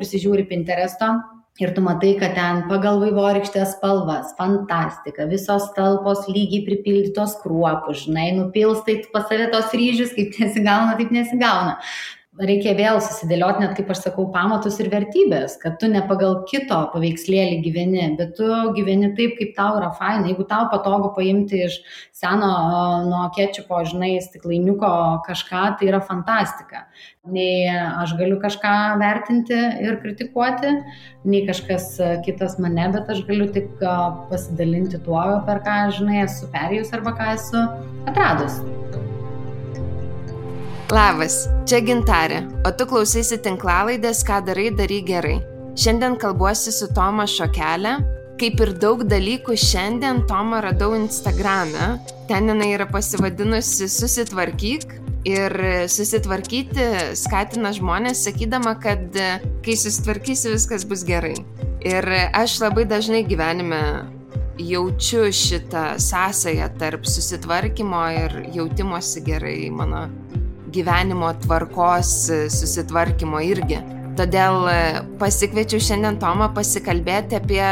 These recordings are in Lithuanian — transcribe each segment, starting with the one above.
prisižiūri Pinteresto ir tu matai, kad ten pagal vaivorykštės spalvas, fantastika, visos talpos lygiai pripildytos kruopų, žinai, nupilstai pas save tos ryžius, kaip nesigauna, taip nesigauna. Reikia vėl susidėlioti, net kaip aš sakau, pamatus ir vertybės, kad tu ne pagal kito paveikslėlį gyveni, bet tu gyveni taip, kaip tau yra faina. Jeigu tau patogu paimti iš seno nuo kečupo, žinai, stiklainiuko kažką, tai yra fantastika. Nei aš galiu kažką vertinti ir kritikuoti, nei kažkas kitas mane, bet aš galiu tik pasidalinti tuo, per ką, žinai, esu perėjus arba ką esu atradus. Labas, čia Gintarė, o tu klausaisi tinklalaidės Ką darai, daryk gerai. Šiandien kalbuosi su Toma Šokelė. Kaip ir daug dalykų šiandien Tomą radau Instagrame. Ten jinai yra pasivadinusi Susitvarkyk ir susitvarkyti skatina žmonės, sakydama, kad kai susitvarkysi, viskas bus gerai. Ir aš labai dažnai gyvenime jaučiu šitą sąsają tarp susitvarkymo ir jautimosi gerai mano gyvenimo tvarkos susitvarkymo irgi. Todėl pasikviečiau šiandien Tomą pasikalbėti apie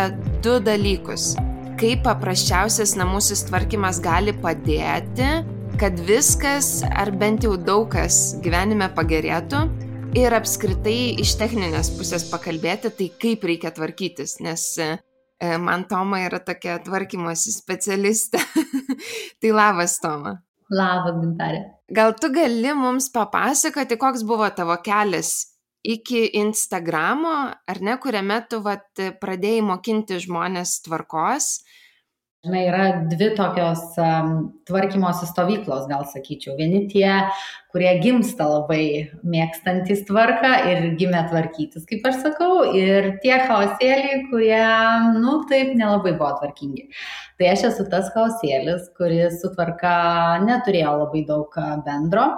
2 dalykus. Kaip paprasčiausias namų susitvarkymas gali padėti, kad viskas, ar bent jau daug kas gyvenime pagerėtų, ir apskritai iš techninės pusės pakalbėti, tai kaip reikia tvarkytis, nes man Toma yra tokia tvarkymosi specialistė. Tai labas, Toma. Labas, Gintarė. Gal tu gali mums papasakoti, koks buvo tavo kelias iki Instagramo, ar ne, kuriame tu pradėjai mokinti žmonės tvarkos? Žinai, yra 2 tokios tvarkymosi stovyklos, gal sakyčiau. Vieni tie, kurie gimsta labai mėgstantys tvarką ir gimė tvarkytis, kaip aš sakau, ir tie chaosėliai, kurie, taip nelabai buvo tvarkingi. Tai aš esu tas chaosėlis, kuris su tvarka neturėjo labai daug bendro.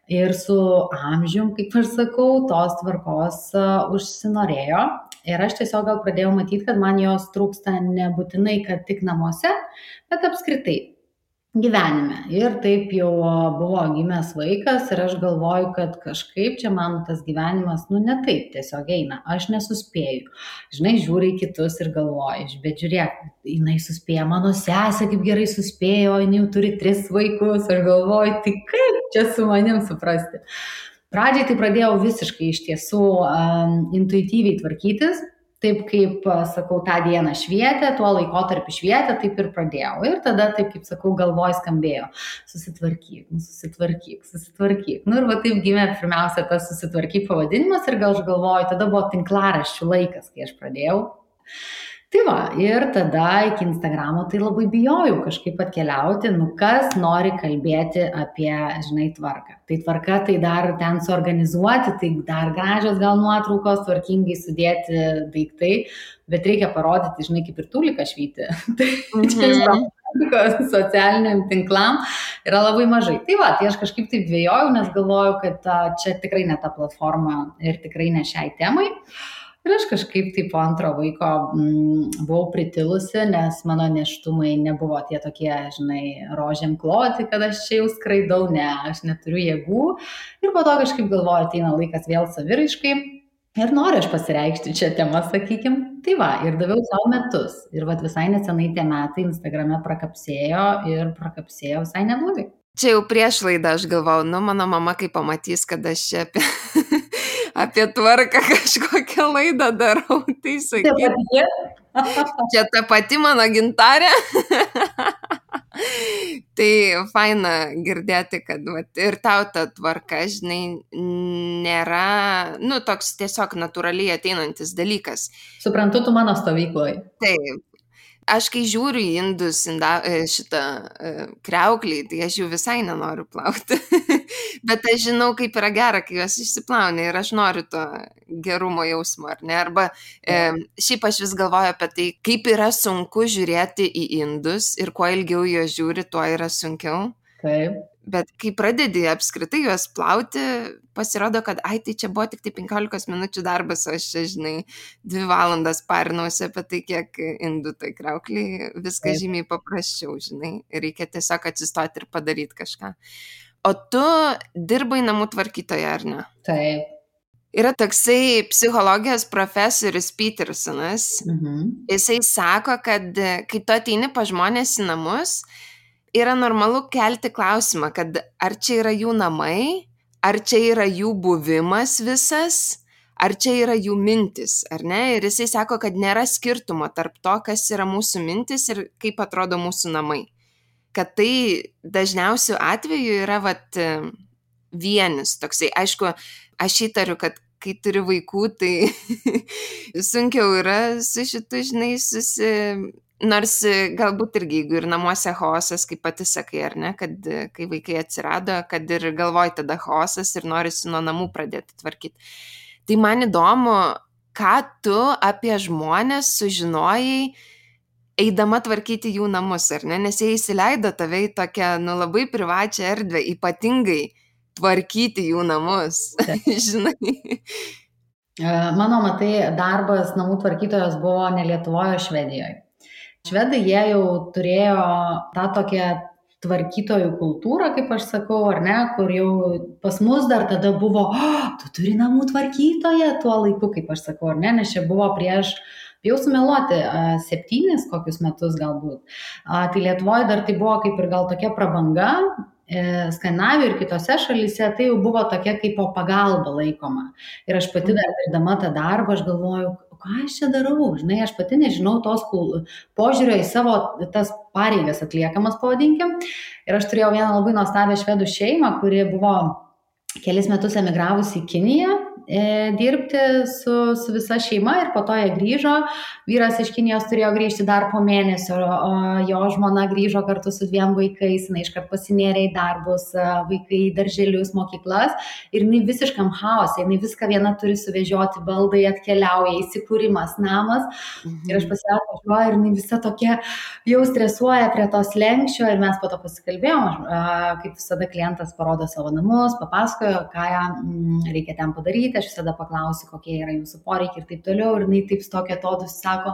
Ir su amžium, kaip aš sakau, tos tvarkos užsinorėjo. Ir aš tiesiog gal pradėjau matyti, kad man jos trūksta nebūtinai, kad tik namuose, bet apskritai gyvenime. Ir taip jau buvo gimęs vaikas ir aš galvoju, kad kažkaip čia man tas gyvenimas, ne taip tiesiog eina. Aš nesuspėju. Žinai, žiūri į kitus ir galvoju, bet žiūrėk, jinai suspėja, mano sesė kaip gerai suspėjo, jinai jau turi 3 vaikus. Aš galvoju, tai kaip čia su manim suprasti. Pradžiai tai pradėjau visiškai iš tiesų intuityviai tvarkytis, taip kaip, sakau, tą dieną švietė, tuo laikotarpį švietė, taip ir pradėjau. Ir tada, taip kaip sakau, galvoj skambėjo, susitvarkyk. Ir taip gimė pirmiausia tas susitvarkyk pavadinimas ir gal aš galvoju, tada buvo tinklaraščių laikas, kai aš pradėjau. Tai va, ir tada iki Instagramo tai labai bijojau kažkaip atkeliauti, kas nori kalbėti apie, žinai, tvarką. Tai tvarka, tai dar ten suorganizuoti, tai dar gražios gal nuotraukos, tvarkingai sudėti daiktai, bet reikia parodyti, žinai, kaip ir tūlika švyti. Tai socialiniam tinklam yra labai mažai. Tai va, tai aš kažkaip taip dvejojau, nes galvojau, kad čia tikrai ne ta platforma ir tikrai ne šiai temai. Ir aš kažkaip tai po antro vaiko buvau pritilusi, nes mano nėštumai nebuvo tie tokie, žinai, rožėm kloti, kad aš čia jau skraidau, aš neturiu jėgų. Ir po to kažkaip galvoju, ateina laikas vėl saviraiškai ir noriu aš pasireikšti čia temą, sakykim. Tai va, ir daviau savo metus. Ir visai nesenai tie metai Instagrame prakapsėjo ir prakapsėjo visai neblogai. Čia jau prieš laidą aš galvau, mano mama kai pamatys, kad aš čia apie tvarką kažkokią laidą darau, tai sakyk. Čia ta pati mano Gintarė. Tai faina girdėti, kad ir tau ta tvarka, žinai, nėra, toks tiesiog natūraliai ateinantis dalykas. Suprantu, tu mano stovykloje. Taip. Aš kai žiūriu į indus, šitą kriauklį, tai aš jau visai nenoriu plauti. Bet aš žinau, kaip yra gera, kai juos išsiplauni ir aš noriu to gerumo jausmo, ar ne? Arba šiaip aš vis galvoju apie tai, kaip yra sunku žiūrėti į indus ir kuo ilgiau juos žiūri, tuo yra sunkiau. Taip. Bet kai pradedi apskritai juos plauti, pasirodo, kad tai čia buvo tik tai 15 minučių darbas, o aš čia, žinai, 2 valandas parinausi apie tai, kiek indų tai kriaukliai, viskas žymiai paprasčiau, žinai, reikia tiesiog atsistoti ir padaryti kažką. O tu dirbai namų tvarkytoja, ar ne? Taip. Yra toksai psichologijos profesorius Petersonas. Jisai sako, kad kai tu ateini pas žmonės į namus, yra normalu kelti klausimą, kad ar čia yra jų namai, ar čia yra jų buvimas visas, ar čia yra jų mintis, ar ne? Ir jisai sako, kad nėra skirtumo tarp to, kas yra mūsų mintis ir kaip atrodo mūsų namai. Kad tai dažniausiu atveju yra vienis toksai. Aišku, aš įtariu, kad kai turi vaikų, tai sunkiau yra su šitu, žinai, nors galbūt irgi, jeigu ir namuose chaosas, kaip pati sakai, ar ne, kad kai vaikai atsirado, kad ir galvoj tada chaosas ir norisi nuo namų pradėti tvarkyti. Tai man įdomu, ką tu apie žmonės sužinojai, eidama tvarkyti jų namus, ar ne, nes jie įsileido tave į tokią, labai privačią erdvę, ypatingai tvarkyti jų namus, žinai. Mano, matai, darbas namų tvarkytojos buvo ne Lietuvoje, o Švedijoje. Švedai, jie jau turėjo tą tokią tvarkytojų kultūrą, kaip aš sakau, ar ne, kur jau pas mus dar tada buvo, tu turi namų tvarkytoją tuo laiku, kaip aš sakau, ar ne, nes čia buvo prieš, jau sumeluoti, 7 kokius metus galbūt. Tai Lietuvoje dar tai buvo kaip ir gal tokia prabanga, Skandinavijoje ir kitose šalyse tai jau buvo tokia kaip po pagalba laikoma. Ir aš pati dar dirbdama tą darbą, aš galvoju, ką aš čia darau, žinai, aš pati nežinau tos požiūrio į savo tas pareigas atliekamas, pavadinkim. Ir aš turėjau vieną labai nuostabią švedų šeimą, kuri buvo kelis metus emigravusi į Kiniją dirbti su visa šeima ir po to jie grįžo. Vyras iš Kinijos turėjo grįžti dar po mėnesio, o jo žmona grįžo kartu su 2 vaikais, jinai iškart pasinėrė į darbus, vaikai į darželius, mokyklas ir jinai visiškam chaose, jinai viską viena turi suvežioti, baldai atkeliauja, įsikūrimas, namas. Ir aš pasivažiuoju ir jinai visa tokia jau stresuoja prie tos lenkščio ir mes po to pasikalbėjom, kaip visada klientas parodo savo namus, papasakojo, ką reikia ten padaryti. Aš visada paklausiu, kokie yra jūsų poreikiai ir taip toliau. Ir jinai taip tokia atodus sako,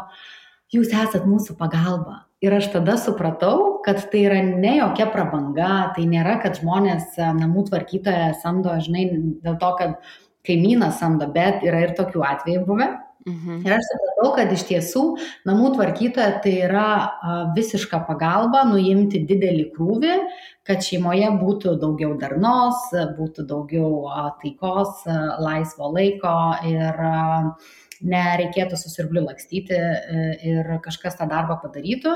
jūs esat mūsų pagalba. Ir aš tada supratau, kad tai yra ne jokia prabanga, tai nėra, kad žmonės namų tvarkytoją samdo, žinai, dėl to, kad kaimynas samdo, bet yra ir tokių atvejų buvę. Ir aš supratau, kad iš tiesų namų tvarkytoja tai yra visiška pagalba nuimti didelį krūvį, kad šeimoje būtų daugiau darnos, būtų daugiau taikos, laisvo laiko ir nereikėtų su siurbliu lakstyti ir kažkas tą darbą padarytų.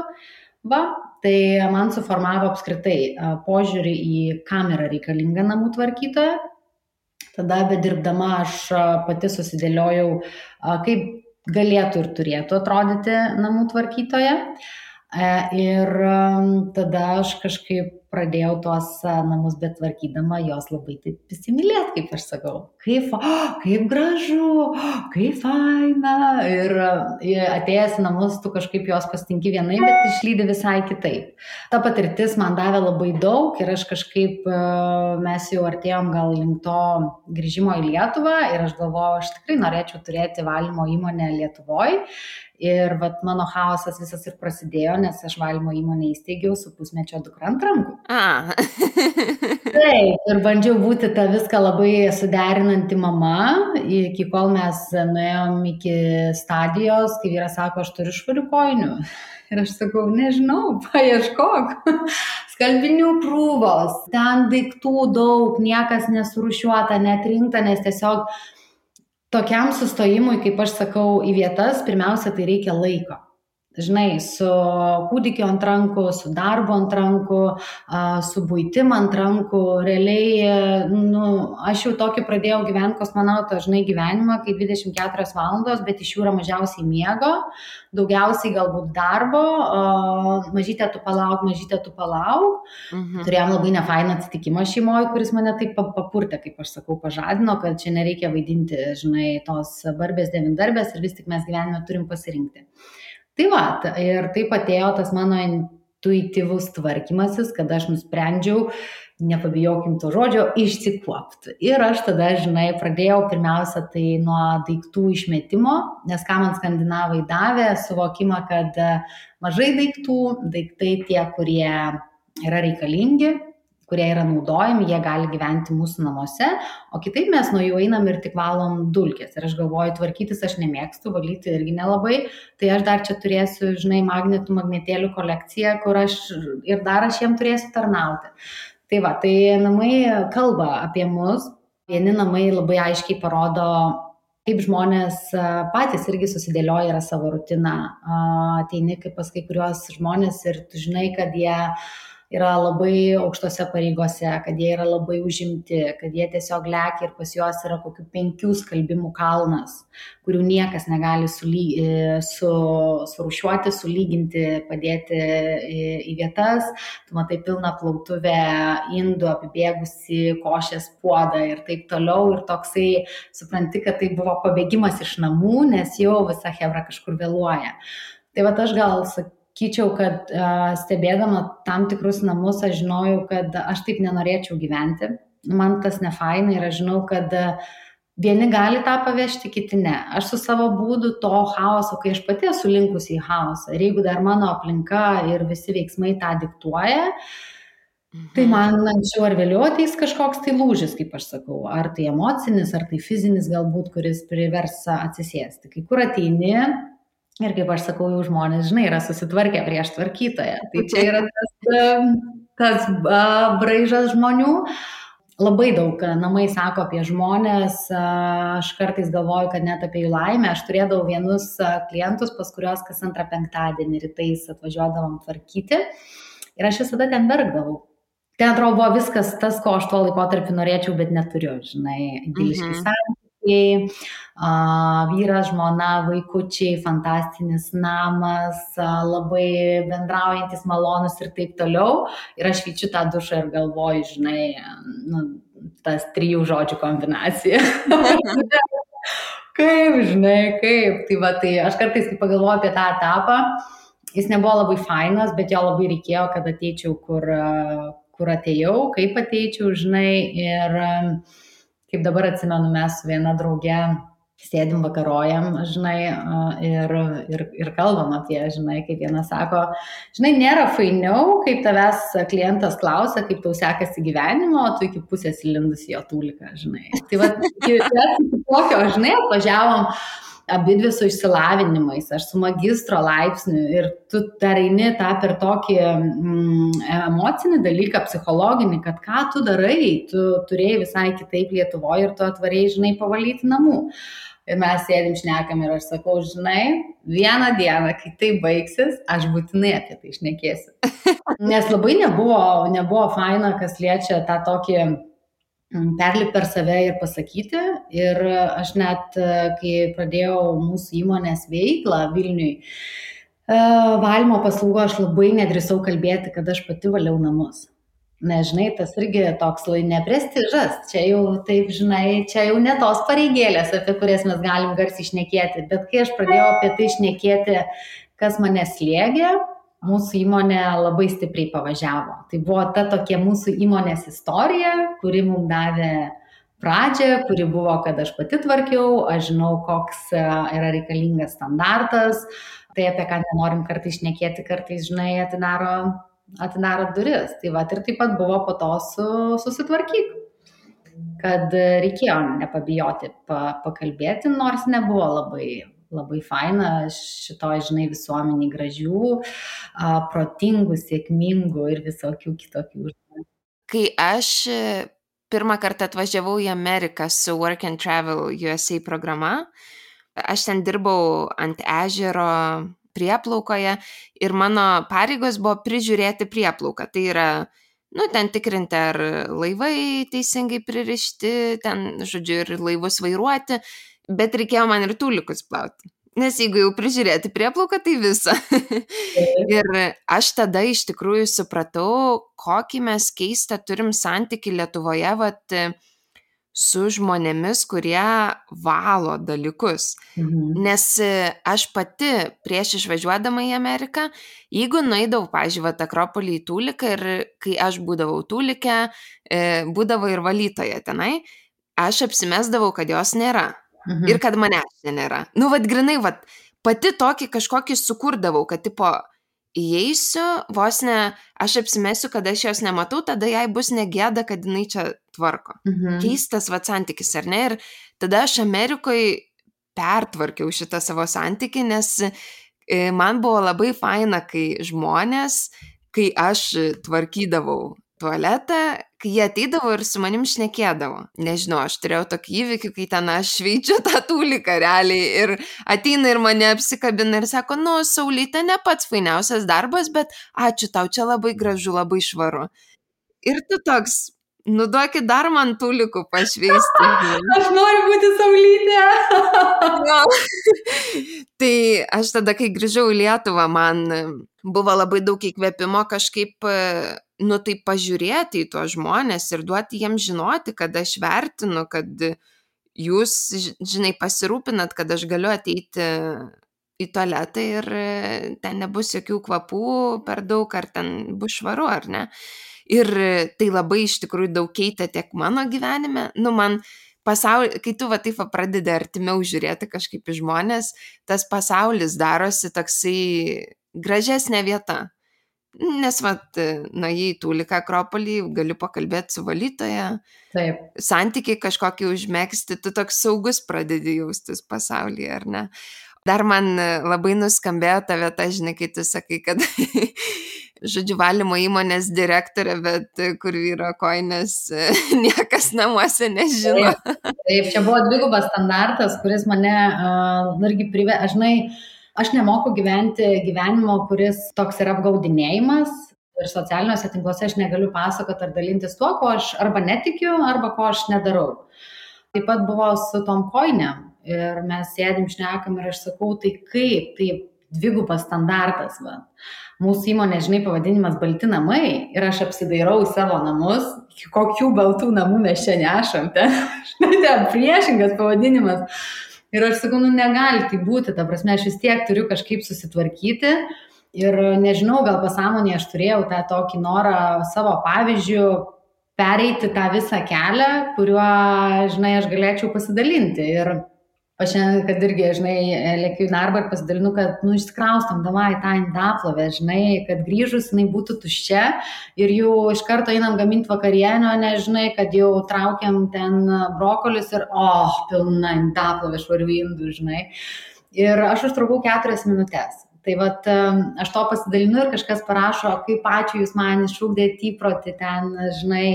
Tai man suformavo apskritai požiūrį į kam yra reikalinga namų tvarkytoja. Tada bedirbdama aš pati susidėliojau, kaip galėtų ir turėtų atrodyti namų tvarkytoja. Ir tada aš kažkaip pradėjau tuos namus betvarkydama jos labai taip įsimylėti, kaip aš sakau. Kaip gražu, kaip faina. Ir atėjęs į namus, tu kažkaip jos pastinki vienai, bet išlydi visai kitaip. Ta patirtis man davė labai daug ir aš kažkaip, mes jau artėjom gal link to grįžimo į Lietuvą ir aš galvoju, aš tikrai norėčiau turėti valymo įmonę Lietuvoje. Ir mano chaosas visas ir prasidėjo, nes aš valymo įmonę įsteigiau su pusmečio dukra ant rankų. Taip, ir bandžiau būti tą viską labai suderinanti mama, iki kol mes nuėjom iki stadijos, kai vyras sako, aš turiu švarių kojinių. Ir aš sakau, nežinau, paieškok. Skalbinių krūvos, ten daiktų daug, niekas nesurūšiuota, netrinkta, nes tiesiog tokiam sustojimui, kaip aš sakau, į vietas, pirmiausia, tai reikia laiko. Žinai, su kūdikiu ant rankų, su darbu ant rankų, su buitim ant rankų, realiai, aš jau tokį pradėjau gyventi kosmonauto, žinai, gyvenimą, kai 24 valandos, bet iš jų yra mažiausiai miego, daugiausiai galbūt darbo, mažytė tu palauk. Turėjom labai nefainą atsitikimą šeimoje, kuris mane taip papurtė, kaip aš sakau, pažadino, kad čia nereikia vaidinti, žinai, tos barbės devindarbės ir vis tik mes gyvenime turim pasirinkti. Tai ir taip atėjo tas mano intuityvus tvarkymasis, kad aš nusprendžiau, nepabijokim to žodžio, išsikuopti. Ir aš tada, žinai, pradėjau pirmiausia tai nuo daiktų išmetimo, nes ką man skandinavai davė, suvokimą, kad mažai daiktai tie, kurie yra reikalingi, kurie yra naudojami, jie gali gyventi mūsų namuose, o kitaip mes nuo jų einam ir tik valom dulkes. Ir aš galvoju, tvarkytis aš nemėgstu, valyti irgi nelabai, tai aš dar čia turėsiu, žinai, magnetėlių kolekciją, kur aš jiem turėsiu tarnauti. Tai va, tai namai kalba apie mus, vieni namai labai aiškiai parodo, kaip žmonės patys irgi susidėlioja yra savo rutiną, ateini kaip pas kai kuriuos žmonės ir tu žinai, kad jie yra labai aukštose pareigose, kad jie yra labai užimti, kad jie tiesiog lekia ir pas juos yra kokių 5 skalbimų kalnas, kurių niekas negali surūšiuoti, sulyginti, padėti į vietas. Tu matai pilną plautuvę indų, apibėgusi košės puodą ir taip toliau. Ir toksai supranti, kad tai buvo pabėgimas iš namų, nes jau visa chebra kažkur vėluoja. Tai va aš gal sakyčiau, kad stebėdama tam tikrus namus, aš žinojau, kad aš taip nenorėčiau gyventi. Man tas nefaina ir aš žinau, kad vieni gali tą pavežti, kiti ne. Aš su savo būdu to chaoso, kai aš pati esu linkusi į chaosą, ir jeigu dar mano aplinka ir visi veiksmai tą diktuoja, tai man anksčiau ar vėliau ateis kažkoks tai lūžis, kaip aš sakau, ar tai emocinis, ar tai fizinis galbūt, kuris privers atsisėsti. Kai kur ateini, ir kaip aš sakau, jau žmonės, žinai, yra susitvarkę prieš tvarkytoją. Tai čia yra tas braižas žmonių. Labai daug namai sako apie žmonės. Aš kartais galvoju, kad net apie jų laimę. Aš turėdavau vienus klientus, pas kuriuos kas antrą penktadienį rytais atvažiuodavom tvarkyti. Ir aš visada ten verkdavau. Ten atrodo buvo viskas tas, ko aš tuo laikotarpiu norėčiau, bet neturiu, žinai, idiliški santykiai, vyras, žmona, vaikučiai, fantastinis namas, labai bendraujantis, malonus ir taip toliau. Ir aš vyčiu tą dušą ir galvoju, žinai, tas 3 žodžių kombinacija. Kaip, žinai, kaip. Tai va, tai aš kartais, kai pagalvoju apie tą etapą, jis nebuvo labai fainas, bet jo labai reikėjo, kad ateičiau, kur atėjau, kaip ateičiau, žinai, ir kaip dabar atsimenu, mes su viena drauge sėdim vakarojam, žinai, ir kalbam apie, žinai, kaip viena sako, žinai, nėra fainiau, kaip tavęs klientas klausia, kaip tau sekasi gyvenimo, o tu iki pusės įlindus į jo tūliką, žinai. Tai va, tokio, žinai, atvažiavom abidvi su išsilavinimais, aš su magistro laipsniu ir tu dar eini tą per tokį emocinį dalyką, psichologinį, kad ką tu darai, tu turėjai visai kitaip Lietuvoje ir tu atvarėjai, žinai, pavalyti namų. Ir mes sėdim šnekam ir aš sakau, žinai, vieną dieną, kai tai baigsis, aš būtinai apie tai šnekėsiu. Nes labai nebuvo faina, kas liečia tą tokį perlipti per save ir pasakyti. Ir aš net, kai pradėjau mūsų įmonės veiklą Vilniui, valymo paslaugų, aš labai nedrįsau kalbėti, kad aš pati valiau namus. Nežinai, tas irgi toks neprestižas. Čia jau, taip, žinai, čia jau ne tos pareigėlės, apie kurias mes galim garsiai šnekėti. Bet kai aš pradėjau apie tai šnekėti, kas mane slėgė, mūsų įmonė labai stipriai pavažiavo. Tai buvo ta tokia mūsų įmonės istorija, kuri mums davė pradžią, kuri buvo, kad aš pati tvarkiau, aš žinau, koks yra reikalingas standartas, tai apie ką nenorim kartais šnekėti, kartais, žinai, atidaro duris. Tai va, ir taip pat buvo po to susitvarkyti, kad reikėjo nepabijoti pakalbėti, nors nebuvo labai faina šitoj, žinai, visuomeniai gražių, protingų, sėkmingų ir visokių kitokių. Kai aš pirmą kartą atvažiavau į Ameriką su Work and Travel USA programa, aš ten dirbau ant ežero prieplaukoje ir mano pareigos buvo prižiūrėti prieplauką. Tai yra, ten tikrinti, ar laivai teisingai pririšti, ten, žodžiu, ir laivus vairuoti. Bet reikėjo man ir tūlikus plauti. Nes jeigu jau prižiūrėti prieplauką, tai visą. Ir aš tada iš tikrųjų supratau, kokį mes keistą turim santykį Lietuvoje su žmonėmis, kurie valo dalykus. Nes aš pati prieš išvažiuodama į Ameriką, jeigu nueidavau, pavyzdžiui, Akropolį į tūliką ir kai aš būdavau tūlikę, būdavo ir valytoje tenai, aš apsimesdavau, kad jos nėra. Ir kad manęs nėra. Grinai, pati tokį kažkokį sukurdavau, kad tipo, įeisiu, vos ne, aš apsimesiu, kad aš jos nematau, tada jai bus negėda, kad jinai čia tvarko. Keistas santykis, ar ne? Ir tada aš Amerikoje pertvarkiau šitą savo santykį, nes man buvo labai faina, kai žmonės, kai aš tvarkydavau tualetą, kai jie ateidavo ir su manim šnekėdavo. Nežinau, aš turėjau tokį įvykį, kai ten aš šveičiu tą tūliką realiai ir ateina ir mane apsikabina ir sako, Saulyte, ne pats fainiausias darbas, bet ačiū tau, čia labai gražu, labai švaru. Ir tu toks, duokit dar man tūlikų pašveisti. Aš noriu būti Saulytė. Tai aš tada, kai grįžau į Lietuvą, man buvo labai daug įkvėpimo kažkaip, taip pažiūrėti į tuos žmonės ir duoti jiems žinoti, kad aš vertinu, kad jūs, žinai, pasirūpinat, kad aš galiu ateiti į tualetą ir ten nebus jokių kvapų per daug, ar ten bus švaru, ar ne. Ir tai labai iš tikrųjų daug keitė tiek mano gyvenime. Man kai tu taip pradedi artimiau žiūrėti kažkaip į žmonės, tas pasaulis darosi toksai gražesnė vieta. Nes nuėjai į Tūliką Akropolį, galiu pakalbėti su valytoja, taip. Santykiai kažkokį užmegzti, tu toks saugus pradedi jaustis pasaulyje, ar ne? Dar man labai nuskambėjo ta vieta, žinai, kai tu sakai, kad žodžiu, valymo įmonės direktorė, bet kur vyro kojinės niekas namuose nežino. Taip, čia buvo dvigubas standartas, kuris mane irgi aš nemoku gyventi gyvenimo, kuris toks yra apgaudinėjimas ir socialiniuose tinkluose aš negaliu pasakoti ar dalintis tuo, ko aš arba netikiu, arba ko aš nedarau. Taip pat buvo su tom kojinėm ir mes sėdim, šnekam ir aš sakau, tai kaip, tai dvigubas standartas. Mūsų įmonė, žinai, pavadinimas Balti namai ir aš apsidairau į savo namus, kokių baltų namų mes čia nešam, ten priešingas pavadinimas. Ir aš sakau, negali tai būti, ta prasme, aš vis tiek turiu kažkaip susitvarkyti ir nežinau, gal pasąmonėje aš turėjau tą tokį norą savo pavyzdžių pereiti tą visą kelią, kuriuo, žinai, aš galėčiau pasidalinti. Ir aš šiandien, kad irgi, žinai, lėkiu į darbą ir pasidalinu, kad, išsikraustam davai tą indaplovę, žinai, kad grįžus jinai būtų tuščia ir jau iš karto einam gaminti vakarienio, nežinai, kad jau traukiam ten brokolius ir, pilna indaplovė švarių indų, žinai. Ir aš užtrukau 4 minutės. Tai aš to pasidalinu ir kažkas parašo, kaip ačiū jūs man išugdėt įprotį ten, žinai,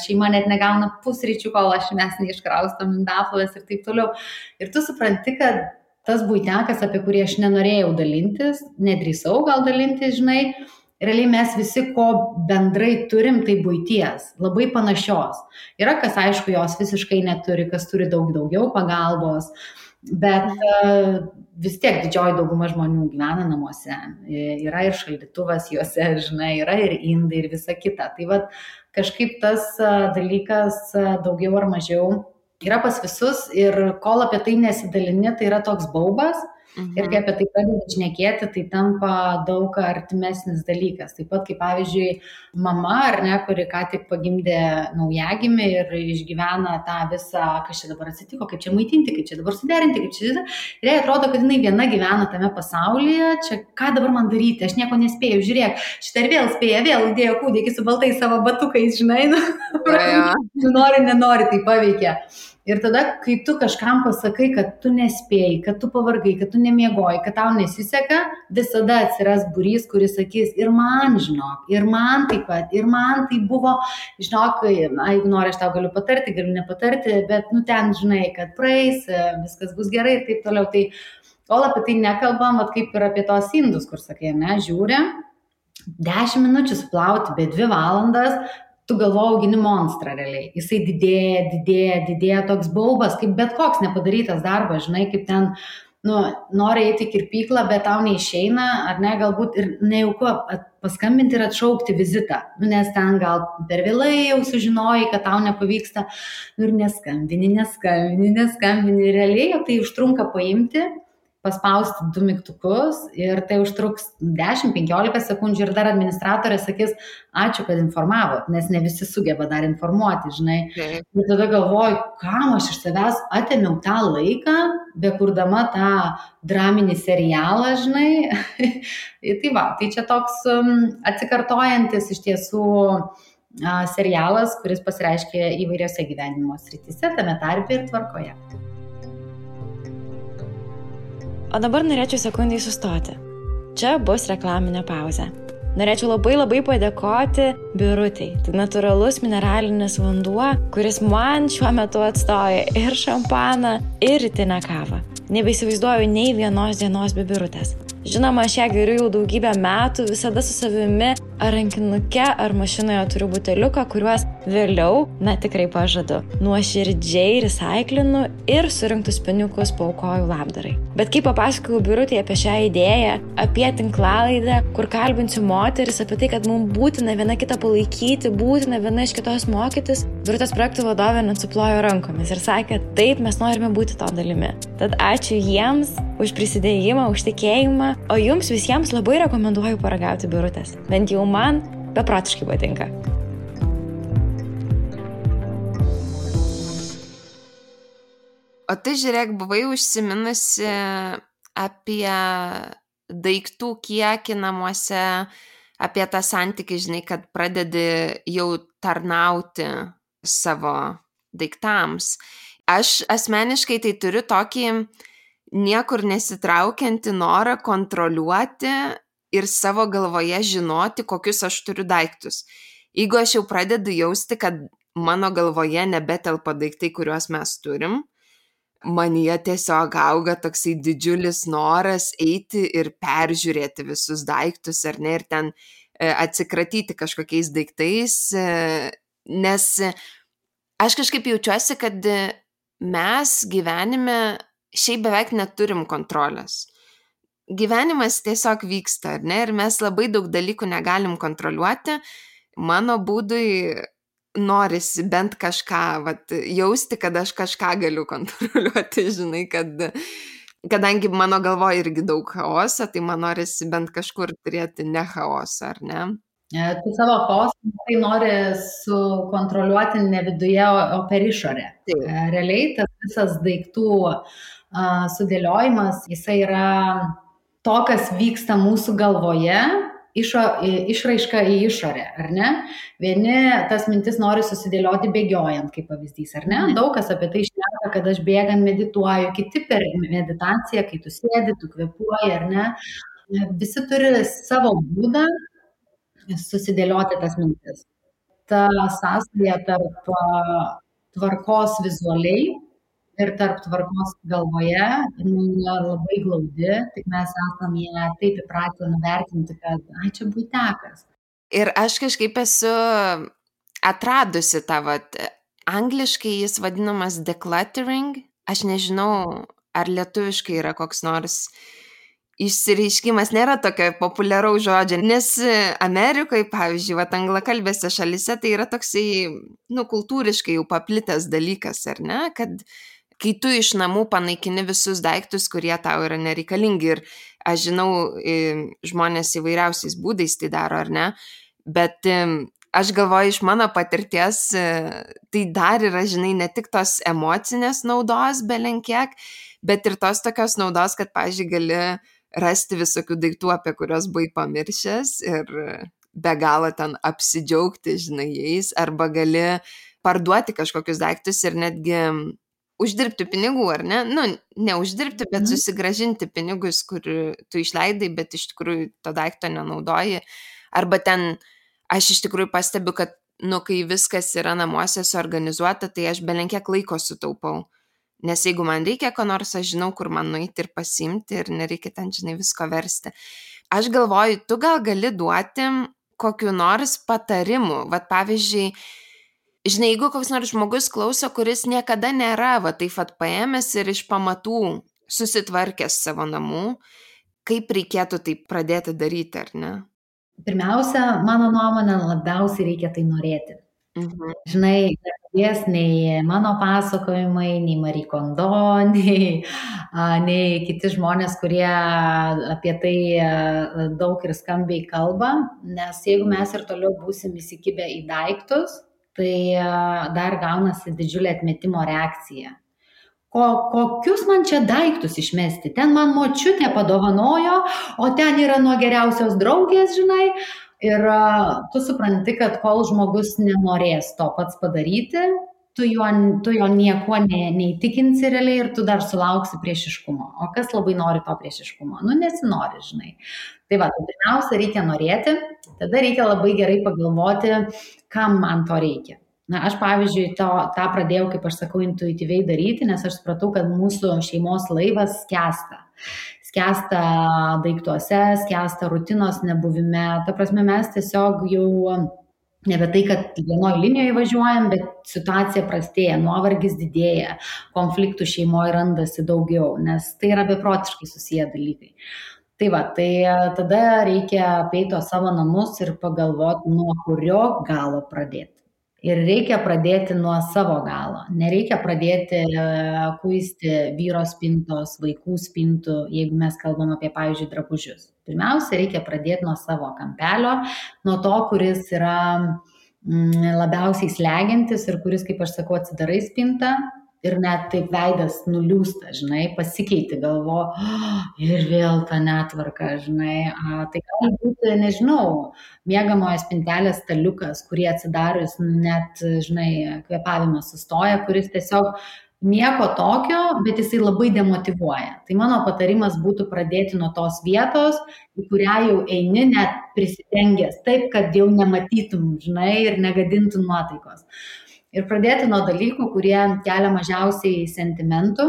šeima net negauna pusryčių, kol mes neiškraustom indaplovės ir taip toliau. Ir tu supranti, kad tas buitekas, apie kurį aš nenorėjau dalintis, nedrįsau gal dalintis, žinai, realiai mes visi, ko bendrai turim, tai buities, labai panašios. Yra, kas aišku, jos visiškai neturi, kas turi daugiau pagalbos. Bet vis tiek didžioji dauguma žmonių gyvena namuose. Yra ir šaldytuvas juose, žinai, yra ir indai ir visa kita. Tai kažkaip tas dalykas daugiau ar mažiau yra pas visus ir kol apie tai nesidalini, tai yra toks baubas. Ir kai apie tai pradedi šnekėti, tai tampa daug artimesnis dalykas. Taip pat, kaip pavyzdžiui, mama, ar ne, kuri ką tik pagimdė naujagimį ir išgyvena tą visą, kas čia dabar atsitiko, kaip čia maitinti, kaip čia dabar suderinti, kaip čia... Ir jai atrodo, kad jinai viena gyvena tame pasaulyje, čia ką dabar man daryti, aš nieko nespėjau, žiūrėk, šitą ir vėl spėja, vėl įdėjo kūdikį su baltais savo batukais, žinai, nori, nenori, tai paveikia. Ir tada, kai tu kažkam pasakai, kad tu nespėjai, kad tu pavargai, kad tu nemiegoji, kad tau nesiseka, visada atsiras būrys, kuris sakys, ir man, žinok, ir man taip pat, ir man tai buvo, žinok, jeigu nori, aš tau galiu patarti, galiu nepatarti, bet, ten, žinai, kad praeis, viskas bus gerai ir taip toliau. Tai kol apie tai nekalbam, kaip ir apie tos indus, kur sakai, ne, žiūri, 10 minučių suplauti, bet 2 valandas, tu galvoji, augini monstrą realiai. Jisai didėja toks baubas, kaip bet koks nepadarytas darbas, žinai, kaip ten, nori eiti į kirpyklą, bet tau neišeina, ar ne, galbūt ir nejauku paskambinti ir atšaukti vizitą, nes ten gal per vėlai jau sužinojai, kad tau nepavyksta, ir neskambini, realiai tai užtrunka paimti paspausti 2 mygtukus ir tai užtruks 10-15 sekundžių ir dar administratorė sakys, ačiū, kad informavot, nes ne visi sugeba dar informuoti, žinai. Taip. Ir tada galvoju, kam aš iš savęs atėmiau tą laiką, bekurdama tą draminį serialą, žinai. Tai va, tai čia toks atsikartojantis iš tiesų serialas, kuris pasireiškia įvairiose gyvenimo srityse, tame tarpe ir tvarkoje. O dabar norėčiau sekundai sustoti. Čia bus reklaminė pauzė. Norėčiau labai padėkoti Birutei. Tai natūralus mineralinis vanduo, kuris man šiuo metu atstoja ir šampaną, ir rytinę kavą. Nebeįsivaizduoju nei vienos dienos be Birutės. Žinoma, aš ją geriu jau daugybę metų, visada su savimi ar rankinuke, ar mašinoje turiu buteliuką, kuriuos vėliau, tikrai pažadu, nuoširdžiai recaiklinu ir surinktus pinigus paaukoju labdarai. Bet kai papasakojau Birutei apie šią idėją, apie tinklalaidę, kur kalbinsiu moteris, apie tai, kad mums būtina viena kitą palaikyti, būtina viena iš kitos mokytis, Birutės projektų vadovė net suplojo rankomis ir sakė, taip, mes norime būti to dalimi. Tad ačiū jiems už prisidėjimą, už tikėjimą, o jums visiems labai rekomenduoju paragauti Birutės. Bent jau man beprotiškai patinka. O tai žiūrėk, buvai užsiminusi apie daiktų kiekį namuose, apie tą santykį, žinai, kad pradedi jau tarnauti savo daiktams. Aš asmeniškai tai turiu tokį niekur nesitraukiantį norą kontroliuoti ir savo galvoje žinoti, kokius aš turiu daiktus. Jeigu aš jau pradedu jausti, kad mano galvoje nebetelpa daiktai, kuriuos mes turim, manyje tiesiog auga toksai didžiulis noras eiti ir peržiūrėti visus daiktus, ar ne, ir ten atsikratyti kažkokiais daiktais, nes aš kažkaip jaučiuosi, kad mes gyvenime šiaip beveik neturim kontrolės. Gyvenimas tiesiog vyksta, ar ne, ir mes labai daug dalykų negalim kontroliuoti. Mano būdui norisi bent kažką, jausti, kad aš kažką galiu kontroliuoti, žinai, kadangi mano galvoje irgi daug chaoso, tai man norisi bent kažkur turėti ne chaosą, ar ne? Tu savo chaosą tai nori sukontroliuoti ne viduje, o per išorę. Realiai tas visas daiktų sudėliojimas, jisai yra to, kas vyksta mūsų galvoje, išraiška į išorę, ar ne? Vieni tas mintis nori susidėlioti bėgiojant, kaip pavyzdys, ar ne? Daug kas apie tai šneka, kad aš bėgant medituoju, kiti per meditaciją, kai tu sėdi, tu kvėpuoji, ar ne? Visi turi savo būdą susidėlioti tas mintis. Ta sąsaja tarp tvarkos vizualiai ir tarp tvarkos galvoje labai glaudi, tik mes esame ją taip įpratę nuvertinti, kad čia buitekas. Ir aš kažkaip esu atradusi tą, angliškai jis vadinamas decluttering, aš nežinau, ar lietuviškai yra koks nors išsireiškimas, nėra tokio populiaraus žodžio, nes Amerikoje, pavyzdžiui, anglakalbėse šalyse tai yra toksai, kultūriškai jau paplitęs dalykas, ar ne, kad kai tu iš namų panaikini visus daiktus, kurie tau yra nereikalingi, ir aš žinau, žmonės įvairiausiais būdais tai daro, ar ne, bet aš galvoju, iš mano patirties, tai dar yra, žinai, ne tik tos emocinės naudos belenkiek, bet ir tos tokios naudos, kad, pavyzdžiui, gali rasti visokių daiktų, apie kuriuos buvai pamiršęs ir be galo ten apsidžiaugti, žinai, jais, arba gali parduoti kažkokius daiktus ir netgi uždirbti pinigų, ar ne? Neuždirbti, bet susigrąžinti pinigus, kur tu išleidai, bet iš tikrųjų to daikto nenaudoji. Arba ten, aš iš tikrųjų pastebiu, kad, kai viskas yra namuose suorganizuota, tai aš belenkiek laiko sutaupau. Nes jeigu man reikia ko nors, aš žinau, kur man nueiti ir pasiimti ir nereikia ten, žinai, visko versti. Aš galvoju, tu gal gali duoti kokiu nors patarimu. Pavyzdžiui, žinai, jeigu koks nors žmogus klauso, kuris niekada nėra, taip paėmęs ir iš pamatų susitvarkęs savo namų, kaip reikėtų tai pradėti daryti, ar ne? Pirmiausia, mano nuomonė, labiausiai reikia tai norėti. Žinai, nepadės nei mano pasakojimai, nei Marie Kondo, nei kiti žmonės, kurie apie tai daug ir skambiai kalba, nes jeigu mes ir toliau būsim įsikibę į daiktus, tai dar gaunasi didžiulė atmetimo reakcija. Kokius man čia daiktus išmesti? Ten man močiutė padovanojo, o ten yra nuo geriausios draugės, žinai. Ir tu supranti, kad kol žmogus nenorės to pats padaryti, tu jo niekuo neįtikinsi realiai ir tu dar sulauksi priešiškumo. O kas labai nori to priešiškumo? Nesinori, žinai. Tai va, tai pirmiausia reikia norėti, tada reikia labai gerai pagalvoti, kam man to reikia. Aš, pavyzdžiui, tą pradėjau, kaip aš sakau, intuityviai daryti, nes aš supratau, kad mūsų šeimos laivas skęsta. Skęsta daiktuose, skęsta rutinos nebuvime. Ta prasme, mes tiesiog jau nebe tai, kad vienoje linijoje važiuojam, bet situacija prastėja, nuovargis didėja, konfliktų šeimoje randasi daugiau, nes tai yra beprotiškai susiję dalykai. Tai va, tai tada reikia apeiti savo namus ir pagalvoti, nuo kurio galo pradėti. Ir reikia pradėti nuo savo galo. Nereikia pradėti kuisti vyro spintos, vaikų spintų, jeigu mes kalbam apie, pavyzdžiui, drabužius. Pirmiausia, reikia pradėti nuo savo kampelio, nuo to, kuris yra labiausiai slegiantis ir kuris, kaip aš sakau, atsidarai spintą ir net taip veidas nuliūsta, žinai, pasikeiti galvo ir vėl ta netvarka, žinai. Tai gali būti, nežinau, miegamojo spintelės staliukas, kurį atsidarius net, žinai, kvėpavimas sustoja, kuris tiesiog nieko tokio, bet jisai labai demotyvuoja. Tai mano patarimas būtų pradėti nuo tos vietos, į kurią jau eini net prisidengęs, taip, kad jau nematytum, žinai, ir negadintum nuotaikos. Ir pradėti nuo dalykų, kurie kelia mažiausiai sentimentų,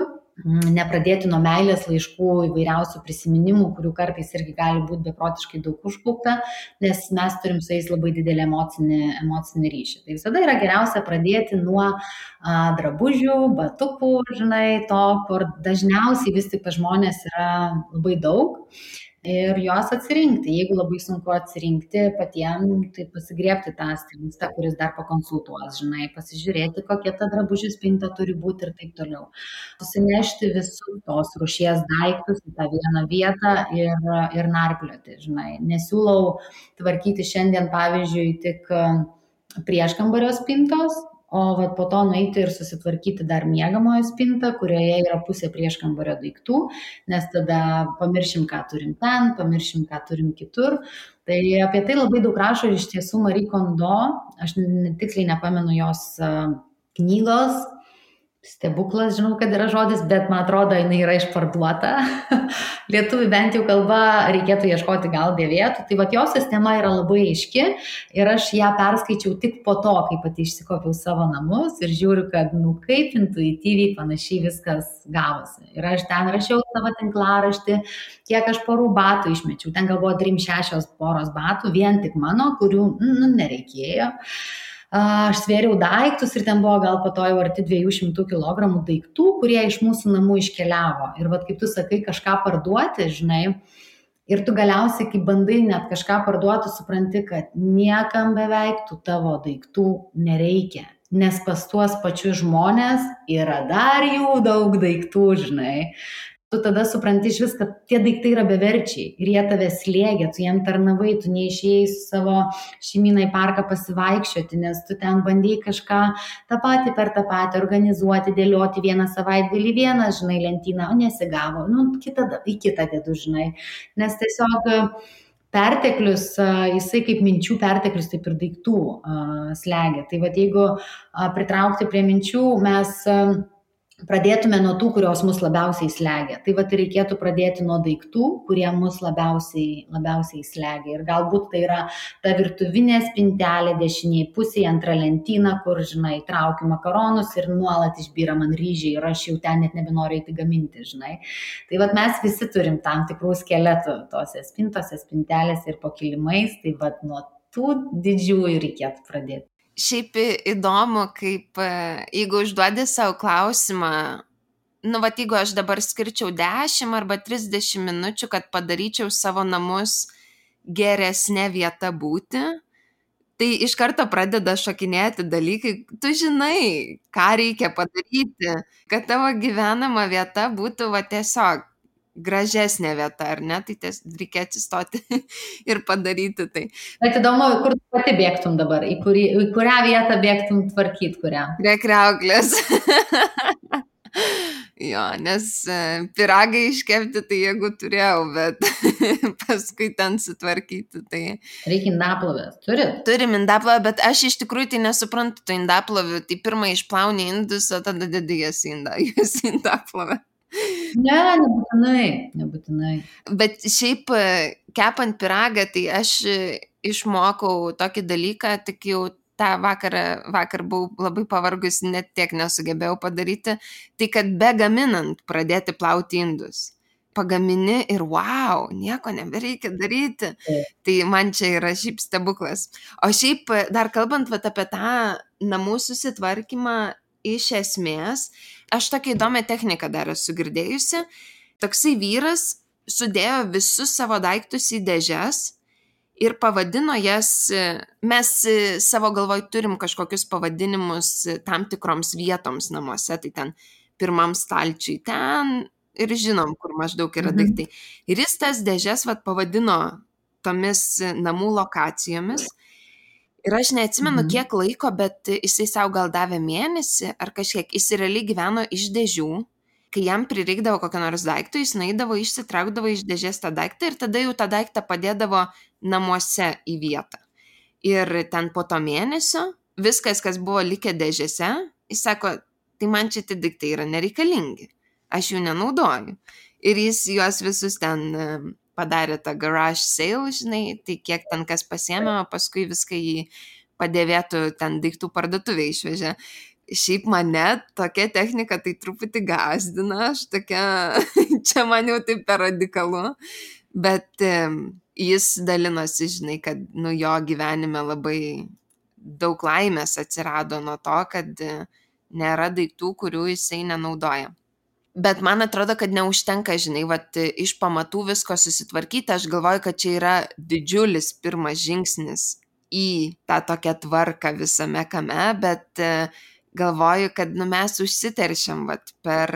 nepradėti nuo meilės laiškų, įvairiausių prisiminimų, kurių kartais irgi gali būti beprotiškai daug užkaupta, nes mes turim su jais labai didelį emocinį ryšį. Tai visada yra geriausia pradėti nuo drabužių, batukų, žinai, to, kur dažniausiai vis tik pas žmonės yra labai daug. Ir juos atsirinkti. Jeigu labai sunku atsirinkti patiems, tai pasigriebti tą stilistą, kuris dar pakonsultuos, žinai, pasižiūrėti, kokia ta drabužių spinta turi būti ir taip toliau. Susinešti visus tos rūšies daiktus į tą vieną vietą ir narplioti, žinai. Nesiūlau tvarkyti šiandien, pavyzdžiui, tik prieškambario spintos, o po to nueiti ir susitvarkyti dar miegamojo spintą, kurioje yra pusė prieškambario daiktų, nes tada pamiršim, ką turim ten, pamiršim, ką turim kitur. Tai apie tai labai daug rašo iš tiesų Marie Kondo, aš tiksliai nepamenu jos knygos, stebuklas, žinau, kad yra žodis, bet man atrodo, jinai yra išparduota. Lietuvių bent jau kalba reikėtų ieškoti gal dėvėtų. Tai jos sistema yra labai aiški ir aš ją perskaičiau tik po to, kai pati išsikopiau savo namus ir žiūriu, kad kaip intuityviai panašiai viskas gavosi. Ir aš ten rašiau savo tinklaraštį, kiek aš porų batų išmečiau. Ten gal buvo 3-6 poros batų, vien tik mano, kurių nereikėjo. Aš svėriau daiktus ir ten buvo gal po to jau arti 200 kg daiktų, kurie iš mūsų namų iškeliavo. Ir kaip tu sakai, kažką parduoti, žinai, ir tu galiausiai, kai bandai net kažką parduoti, supranti, kad niekam beveik tų tavo daiktų nereikia. Nes pas tuos pačius žmonės yra dar jų daug daiktų, žinai. Tu tada supranti iš vis, kad tie daiktai yra beverčiai ir jie tave slėgia, tu jiem tarnavai, tu neišėjai su savo šeimyną į parką pasivaikščioti, nes tu ten bandėjai kažką tą patį per tą patį organizuoti, dėlioti vieną savaitgalį vieną, žinai, lentyną, o nesigavo, į kitą dedu, žinai, nes tiesiog perteklius, jisai kaip minčių perteklius, taip ir daiktų slegia. Tai jeigu pritraukti prie minčių, mes pradėtume nuo tų, kurios mus labiausiai slegia. Tai reikėtų pradėti nuo daiktų, kurie mus labiausiai slegia. Ir galbūt tai yra ta virtuvinė spintelė dešiniai pusėje, antra lentyna, kur, žinai, traukiu makaronus ir nuolat išbyra man ryžiai ir aš jau ten net nebenoriu eiti gaminti, žinai. Tai mes visi turim tam tikrų skeletų tose spintose, spintelėse ir po kilimais. Tai nuo tų didžiųjų reikėtų pradėti. Šiaip įdomu, kaip jeigu užduodi savo klausimą, jeigu aš dabar skirčiau 10 arba 30 minučių, kad padaryčiau savo namus geresnė vieta būti, Tai iš karto pradeda šokinėti dalykai, tu žinai, ką reikia padaryti, kad tavo gyvenama vieta būtų va tiesiog gražesnė vieta, ar ne, tai reikia atsistoti ir padaryti tai. Bet įdomu, kur tu pati bėgtum dabar, į kurią vietą bėgtum tvarkyti, kurią? Prie kriauklės. Jo, nes pyragai iškepti, tai jeigu turėjau, bet paskui ten sutvarkyti, tai... Reikia indaplovės, turit? Turim indaplovę, bet aš iš tikrųjų tai nesuprantu tų indaplovių, tai pirmą išplauni indus, o tada dedi jas indaplovę. Ne, nebūtinai. Bet šiaip kepant pyragą, tai aš išmokau tokį dalyką, tik jau tą vakar buvau labai pavargus, net tiek nesugebėjau padaryti, tai kad be gaminant pradėti plauti indus. Pagamini ir wow, nieko nebereikia daryti. Tai man čia yra šiaip stebuklas. O šiaip dar kalbant apie tą namų susitvarkymą, iš esmės, aš tokią įdomią techniką dar esu girdėjusi. Toksai vyras sudėjo visus savo daiktus į dėžes ir pavadino jas, mes savo galvoj turim kažkokius pavadinimus tam tikroms vietoms namuose, tai ten pirmam stalčiui ten ir žinom, kur maždaug yra daiktai. Ir jis tas dėžes pavadino tomis namų lokacijomis. Ir aš neatsimenu kiek laiko, bet jisai savo gal davė mėnesį ar kažkiek, jis realiai gyveno iš dėžių. Kai jam prireikdavo kokio nors daikto, jis naidavo, išsitraukdavo iš dėžės tą daiktą ir tada jau tą daiktą padėdavo namuose į vietą. Ir ten po to mėnesio viskas, kas buvo likę dėžėse, jis sako, tai man čia tie daiktai yra nereikalingi, aš jų nenaudoju. Ir jis juos visus ten padarė tą garage sale, žinai, tai kiek ten kas pasiėmė, paskui viską į padėvėtų ten daiktų parduotuvę išvežė. Šiaip mane tokia technika tai truputį gazdina, aš tokia, čia man jau taip per radikalu, bet jis dalinosi, žinai, kad jo gyvenime labai daug laimės atsirado nuo to, kad nėra daiktų, kurių jisai nenaudoja. Bet man atrodo, kad neužtenka, žinai, iš pamatų visko susitvarkyti, aš galvoju, kad čia yra didžiulis pirmas žingsnis į tą tokią tvarką visame kame, bet galvoju, kad mes užsiteršiam, per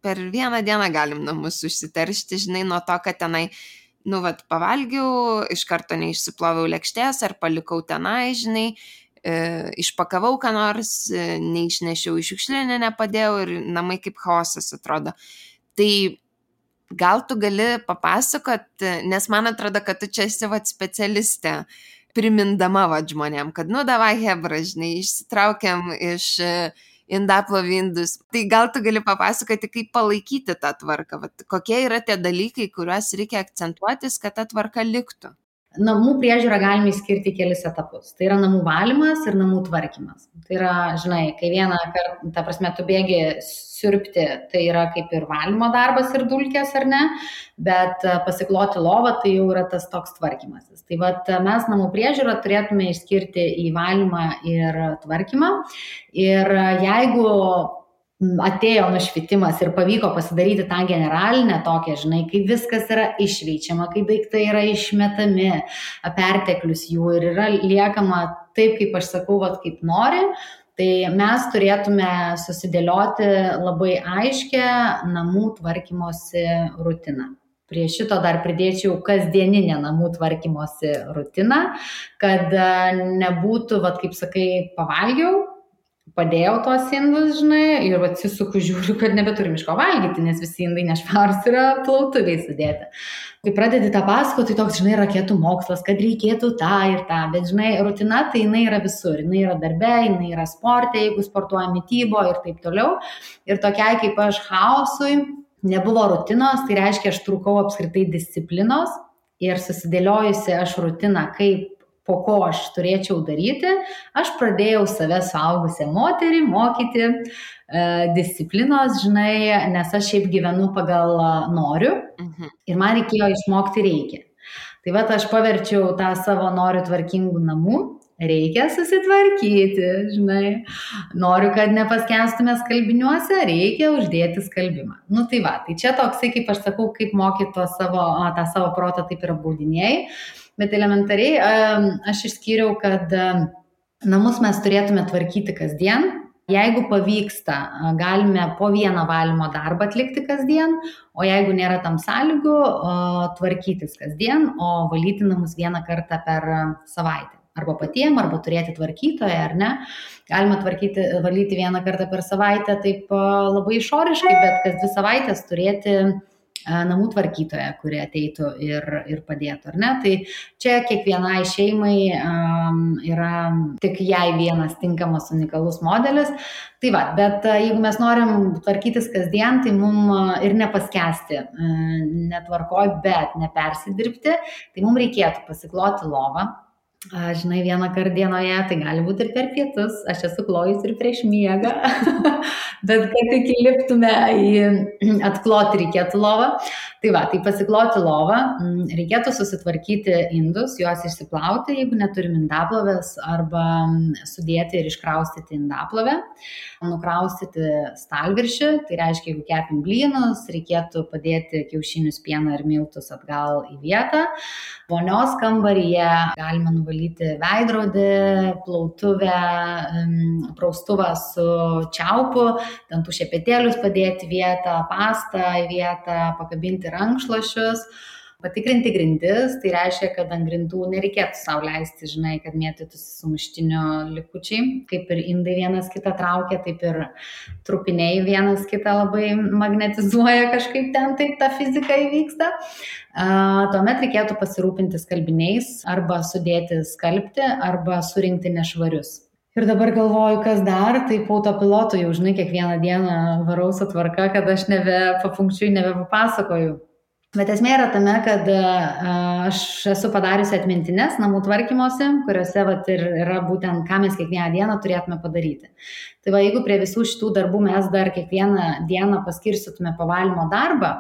vieną dieną galim namus užsiteršti, žinai, nuo to, kad tenai, pavalgiau, iš karto neišsiploviau lėkštės, ar palikau tenai, žinai, išpakavau ką nors, neišnešiau į šiukšlinę, nepadėjau ir namai kaip chaosas atrodo. Tai gal tu gali papasakot, nes man atrodo, kad tu čia esi specialistė, primindama žmonėm, kad davai hebra, žinai, išsitraukiam iš indaplovindus. Tai gal tu gali papasakoti, kaip palaikyti tą tvarką, kokie yra tie dalykai, kuriuos reikia akcentuotis, kad ta tvarka liktų. Namų priežiūrą galime išskirti kelis etapus. Tai yra namų valymas ir namų tvarkymas. Tai yra, žinai, kai vieną kartą, ta prasme, tu bėgi siurbti, tai yra kaip ir valymo darbas ir dulkės, ar ne, bet pasikloti lovą, tai jau yra tas toks tvarkymasis. Tai mes namų priežiūrą turėtume išskirti į valymą ir tvarkymą. Ir jeigu atėjo nušvitimas ir pavyko pasidaryti tą generalinę tokią, žinai, kai viskas yra išveičiama, kai daiktai yra išmetami, perteklius jų ir yra liekama taip, kaip aš sakau, kaip nori, tai mes turėtume susidėlioti labai aiškę namų tvarkymosi rutiną. Prie šito dar pridėčiau kasdieninę namų tvarkymosi rutiną, kad nebūtų, kaip sakai, pavalgiau, padėjau tos indus, žinai, ir atsisuku, žiūriu, kad nebeturim iš ko valgyti, nes visi indai nešvarūs yra plautuviai sudėti. Kai pradedi tą pasakoti, tai toks, žinai, raketų mokslas, kad reikėtų tą ir tą, bet, žinai, rutina tai jinai yra visur, jinai yra darbe, jinai yra sporte, jeigu sportuoja mitybo ir taip toliau. Ir tokiai kaip aš chaosui nebuvo rutinos, tai reiškia, aš trūkau apskritai disciplinos ir susidėliojusi aš rutiną, kaip po ko aš turėčiau daryti, aš pradėjau save suaugusią moterį mokyti disciplinos, žinai, nes aš šiaip gyvenu pagal noriu ir man reikėjo išmokti reikia. Tai aš paverčiau tą savo noriu tvarkingų namų, reikia susitvarkyti, žinai, noriu, kad nepaskenstume skalbiniuose, reikia uždėti skalbimą. Tai čia toksai, kaip aš sakau, kaip mokyti tą savo protą, taip ir apbaudinėjai. Bet elementariai aš išskyriau, kad namus mes turėtume tvarkyti kasdien. Jeigu pavyksta, galime po vieną valymo darbą atlikti kasdien, o jeigu nėra tam sąlygų, tvarkytis kasdien, o valyti namus vieną kartą per savaitę. Arba patiem, arba turėti tvarkytoją, ar ne. Galima valyti vieną kartą per savaitę taip labai išoriškai, bet kas 2 savaitės turėti namų tvarkytoją, kurie ateitų ir padėtų, ar ne? Tai čia kiekvienai šeimai yra tik jai vienas tinkamas unikalus modelis. Tai va, bet jeigu mes norim tvarkytis kasdien, tai mums ir nepaskesti netvarkoj, bet nepersidirbti, tai mums reikėtų pasikloti lovą. Žinai, vieną kartą dienoje, tai gali būti ir per pietus, aš esu klojus ir prieš miegą, bet kad tik įliptume atkloti reikėtų lovą. Tai va, tai pasikloti lovą, reikėtų susitvarkyti indus, juos išsiplauti, jeigu neturim indaplovės, arba sudėti ir iškraustyti indaplovę, nukraustyti stalviršį, tai reiškia, jeigu kepim blynus, reikėtų padėti kiaušinius, pieną ir miltus atgal į vietą. Vonios kambaryje galima nuvalyti veidrodį, plautuvę, praustuvą su čiaupu, dantų šepetėlius padėti vietą, pastą į vietą, pakabinti rankšluosčius, patikrinti grindis, tai reiškia, kad ant grindų nereikėtų sau leisti, žinai, kad mėtytųsi sumuštinio likučiai, kaip ir indai vienas kitą traukia, taip ir trupiniai vienas kitą labai magnetizuoja, kažkaip ten taip ta fizika įvyksta. Tuomet reikėtų pasirūpinti skalbiniais, arba sudėti skalbti, arba surinkti nešvarius. Ir dabar galvoju, kas dar, tai po autopilotu jau, žinai, kiekvieną dieną varau su tvarka, kad aš papunkčiui nebepapasakoju. Bet esmė yra tame, kad aš esu padariusi atmintines namų tvarkymosi, kuriuose ir yra būtent, ką mes kiekvieną dieną turėtume padaryti. Tai va, jeigu prie visų šitų darbų mes dar kiekvieną dieną paskirstytume pavalymo darbą,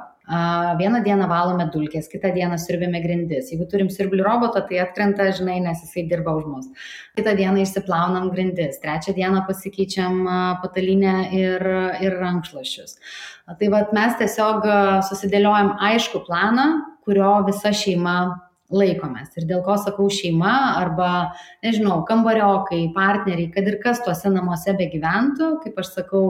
vieną dieną valome dulkės, kitą dieną siurbėme grindis. Jeigu turim siurblių robotą, tai atkrenta, žinai, nes jisai dirba už mus. Kitą dieną išsiplaunam grindis, trečią dieną pasikeičiam patalynę ir rankšluosčius. Tai vat mes tiesiog susidėliojam aišku planą, kurio visa šeima laikomės. Ir dėl ko sakau šeima arba, nežinau, kambariokai, partneriai, kad ir kas tuose namuose begyventų, kaip aš sakau,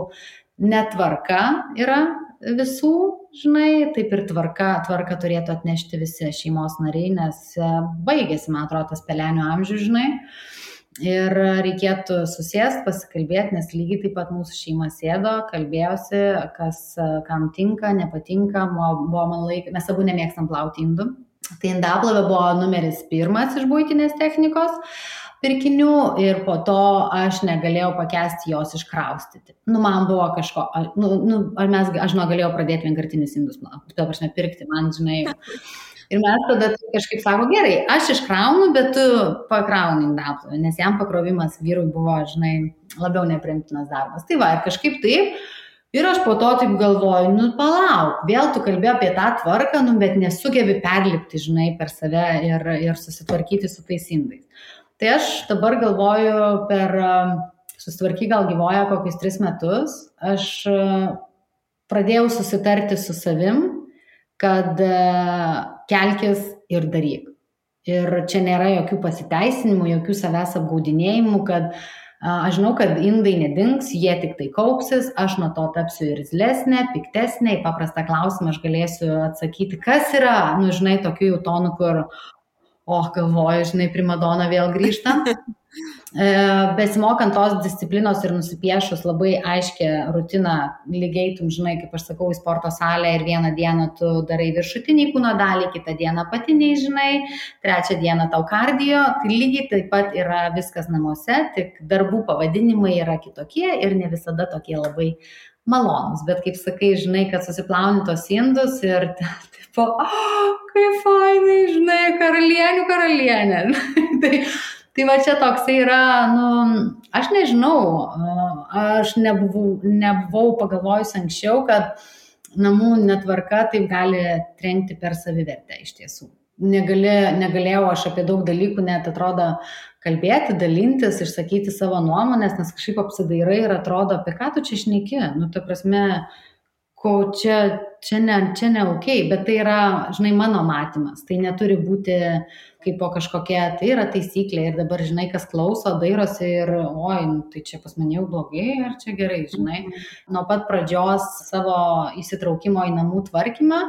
netvarka yra visų, žinai, taip ir tvarka turėtų atnešti visi šeimos nariai, nes baigėsi, man atrodo, tas pelenių amžius, žinai, ir reikėtų susėsti, pasikalbėti, nes lygiai taip pat mūsų šeima sėdo, kalbėjosi, kas kam tinka, nepatinka, mes abu nemėgstam plauti indų, tai indaplovė buvo numeris 1 iš buitinės technikos pirkinių ir po to aš negalėjau pakęsti jos iškraustyti. Man buvo kažko, aš galėjau pradėti vienkartinius indus plauti, to aš nepirkti, man, žinai. Ir mes tada kažkaip sako, gerai, aš iškraunu, bet tu pakrauni indaplovę, nes jam pakrovimas vyrui buvo, žinai, labiau nepriimtinas darbas. Tai va, ir kažkaip taip. Ir aš po to taip galvoju, palauk, vėl tu kalbėjai apie tą tvarką, bet nesugebi perlipti, žinai, per save ir susitvarkyti su tais indais. Tai aš dabar galvoju, susitvarky gal gyvoja kokius 3 metus, aš pradėjau susitarti su savim, kad kelkis ir daryk. Ir čia nėra jokių pasiteisinimų, jokių savęs apgaudinėjimų, kad aš žinau, kad indai nedings, jie tik tai kaupsis, aš nuo to tapsiu irzlesnė, piktesnė, į paprastą klausimą aš galėsiu atsakyti, kas yra, žinai, tokių jau tonų, kur galvoju, žinai, primadona vėl grįžta. Besimokant tos disciplinos ir nusipiešus labai aiškę rutiną, lygiai, žinai, kaip aš sakau, į sporto salę ir vieną dieną tu darai viršutinį kūno dalį, kitą dieną patiniai, žinai, trečią dieną tau kardio, tai lygiai taip pat yra viskas namuose, tik darbų pavadinimai yra kitokie ir ne visada tokie labai malonus, bet kaip sakai, žinai, kad susiplauni tos indus ir tipo, kaip fainai, žinai, karalienė. Tai va čia toksai yra, aš nežinau, aš nebuvau pagalvojus anksčiau, kad namų netvarka taip gali trenkti per savivertę iš tiesų. Negalėjau aš apie daug dalykų net atrodo kalbėti, dalintis, išsakyti savo nuomonės, nes kažkaip apsidairai ir atrodo, apie ką tu čia šneki. Ta prasme, čia ne okay, bet tai yra, žinai, mano matymas. Tai neturi būti kaip po kažkokia, tai yra taisyklė ir dabar, žinai, kas klauso, dairosi ir, oi, tai čia pas mane jau blogai ar čia gerai, žinai. Nuo pat pradžios savo įsitraukimo į namų tvarkymą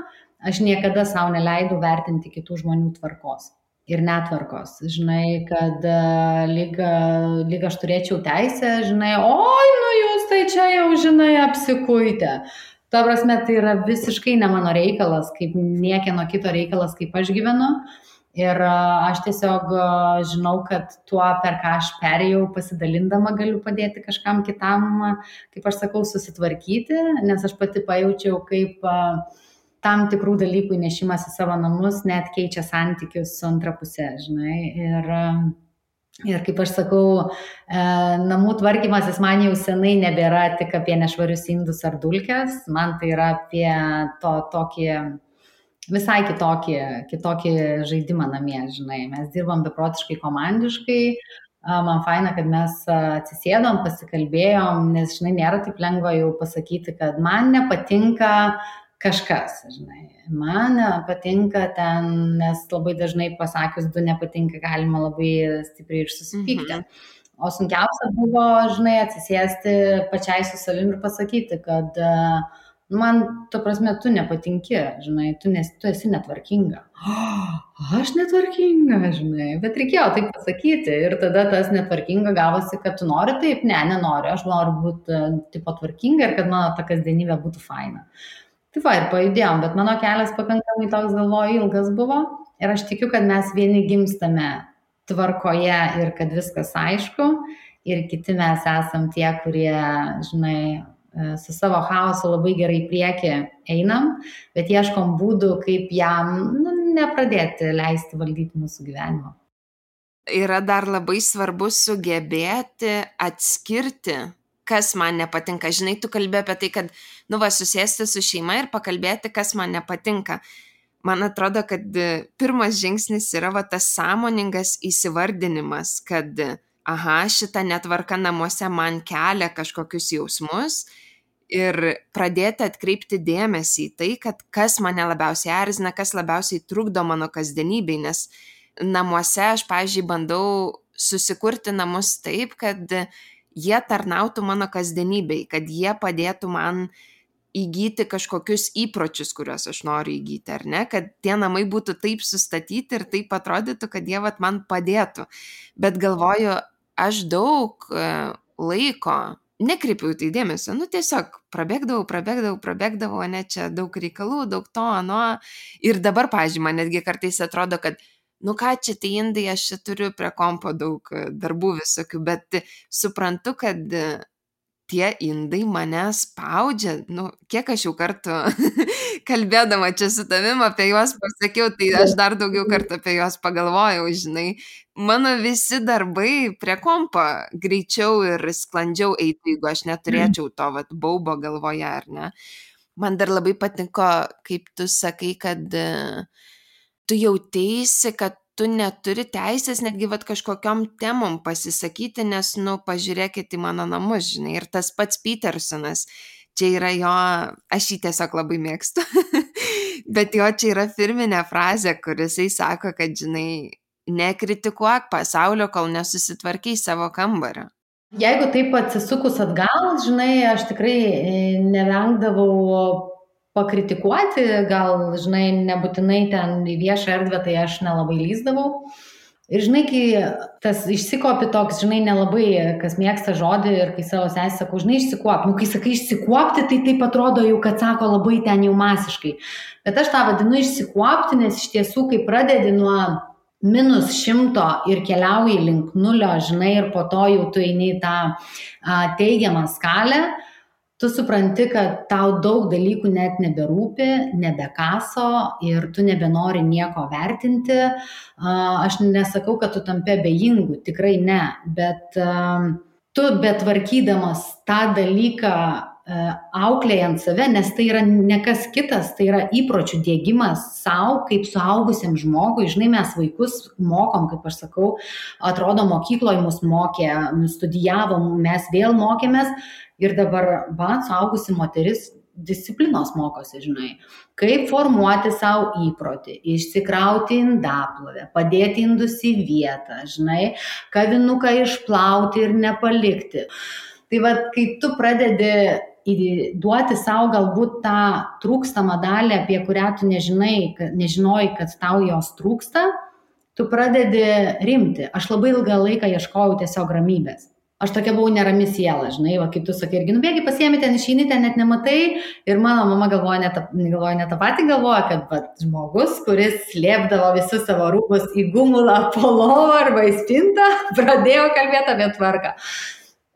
aš niekada savo neleidau vertinti kitų žmonių tvarkos ir netvarkos, žinai, kad lyg aš turėčiau teisę, žinai, oi, nu jūs tai čia jau, žinai, apsikuitę. Ta prasme, tai yra visiškai ne mano reikalas, kaip niekieno kito reikalas, kaip aš gyvenu. Ir aš tiesiog žinau, kad tuo, per ką aš perėjau, pasidalindama galiu padėti kažkam kitam, kaip aš sakau, susitvarkyti, nes aš pati pajaučiau, kaip tam tikrų dalykų įnešimas į savo namus net keičia santykius su antra pusė, žinai. Ir kaip aš sakau, namų tvarkymasis man jau senai nebėra tik apie nešvarius indus ar dulkes, man tai yra apie tokį visai kitokį žaidimą namie, žinai. Mes dirbam beprotiškai komandiškai, man faina, kad mes atsisėdom, pasikalbėjom, nes, žinai, nėra taip lengva jau pasakyti, kad man nepatinka kažkas, žinai. Man patinka ten, nes labai dažnai pasakius du nepatinka, galima labai stipriai ir susipykti. O sunkiausia buvo, žinai, atsisėsti pačiai su savimi ir pasakyti, kad man, ta prasme, tu nepatinki, žinai, tu esi netvarkinga. Aš netvarkinga, žinai, bet reikėjo taip pasakyti ir tada tas netvarkinga gavosi, kad tu nori taip, nenoriu, aš noriu būti tipo tvarkinga ir kad mano ta kasdienybė būtų faina. Tai va, ir pajudėjom, bet mano kelias pakankamai toks, galvoju, ilgas buvo ir aš tikiu, kad mes vieni gimstame tvarkoje ir kad viskas aišku ir kiti mes esam tie, kurie, žinai, su savo chaosu labai gerai priekį einam, bet ieškom būdų, kaip jam nepradėti leisti valdyti mūsų gyvenimo. Yra dar labai svarbu sugebėti atskirti, kas man nepatinka. Žinai, tu kalbė apie tai, kad, susėsti su šeima ir pakalbėti, kas man nepatinka. Man atrodo, kad pirmas žingsnis yra tas sąmoningas įsivardinimas, kad, šita netvarka namuose man kelia kažkokius jausmus ir pradėti atkreipti dėmesį į tai, kad kas mane labiausiai erzina, kas labiausiai trukdo mano kasdienybei, nes namuose aš, pavyzdžiui, bandau susikurti namus taip, kad jie tarnautų mano kasdienybei, kad jie padėtų man įgyti kažkokius įpročius, kuriuos aš noriu įgyti, ar ne, kad tie namai būtų taip sustatyti ir taip atrodytų, kad jie man padėtų. Bet galvoju, aš daug laiko nekreipiau tai dėmesio, tiesiog prabėgdavau, ne, čia daug reikalų, daug to, ir dabar, pavyzdžiui, man netgi kartais atrodo, kad ką čia tai indai, aš čia turiu prie kompo daug darbų visokių, bet suprantu, kad tie indai mane spaudžia, kiek aš jau kartų kalbėdama čia su tavim apie juos pasakiau, tai aš dar daugiau kartų apie juos pagalvojau, žinai, mano visi darbai prie kompo greičiau ir sklandžiau eitų, jeigu aš neturėčiau to baubo galvoje, ar ne. Man dar labai patiko, kaip tu sakai, kad tu jauteisi, kad tu neturi teisės netgi kažkokiom temom pasisakyti, nes, pažiūrėkit į mano namus, žinai, ir tas pats Petersonas, čia yra jo, aš jį tiesiog labai mėgstu, bet jo čia yra firminė frazė, kur jisai sako, kad, žinai, nekritikuok pasaulio, kol nesusitvarkiai savo kambario. Jeigu taip atsisukus atgal, žinai, aš tikrai nevengdavau pakritikuoti, gal, žinai, nebūtinai ten į viešą erdvę, tai aš nelabai lyzdavau. Ir, žinai, kai tas išsikopi toks, žinai, nelabai, kas mėgsta žodį ir kai savo sesį sakau, žinai, išsikuop. Kai sakai išsikuopti, tai taip atrodo jau, kad sako labai ten jau masiškai. Bet aš tą vadinu išsikuopti, nes iš tiesų, kai pradedi nuo -100 ir keliauji link 0, žinai, ir po to jau tu eini į tą teigiamą skalę, tu supranti, kad tau daug dalykų net neberūpi, nebekaso ir tu nebenori nieko vertinti. Aš nesakau, kad tu tampi abejingu, tikrai ne, bet tu betvarkydamas tą dalyką auklėjant save, nes tai yra ne kas kitas, tai yra įpročių diegimas savo kaip suaugusiam žmogui. Žinai, mes vaikus mokom, kaip aš sakau, atrodo mokykloje mus mokė, studijavom, mes vėl mokėmės ir dabar suaugusi moteris disciplinos mokosi, žinai, kaip formuoti savo įprotį, išsikrauti indaplovę, padėti indus į vietą, žinai, kavinuką išplauti ir nepalikti. Tai va, kai tu pradedi duoti savo galbūt tą trūkstamą dalį, apie kurią tu nežinojai, kad tau jos trūksta, tu pradedi rimti. Aš labai ilgą laiką ieškojau tiesiog ramybės. Aš tokia buvau nerami siela, žinai, va, kaip tu sakai, irgi nubėgi, pasiemi ten, išeini ten, net nematai. Ir mano mama galvoja ne tą patį, galvoja, kad va, žmogus, kuris slėpdavo visus savo rūbus į gumulą, po lovą arba į spintą, pradėjo kalbėti apie tvarką.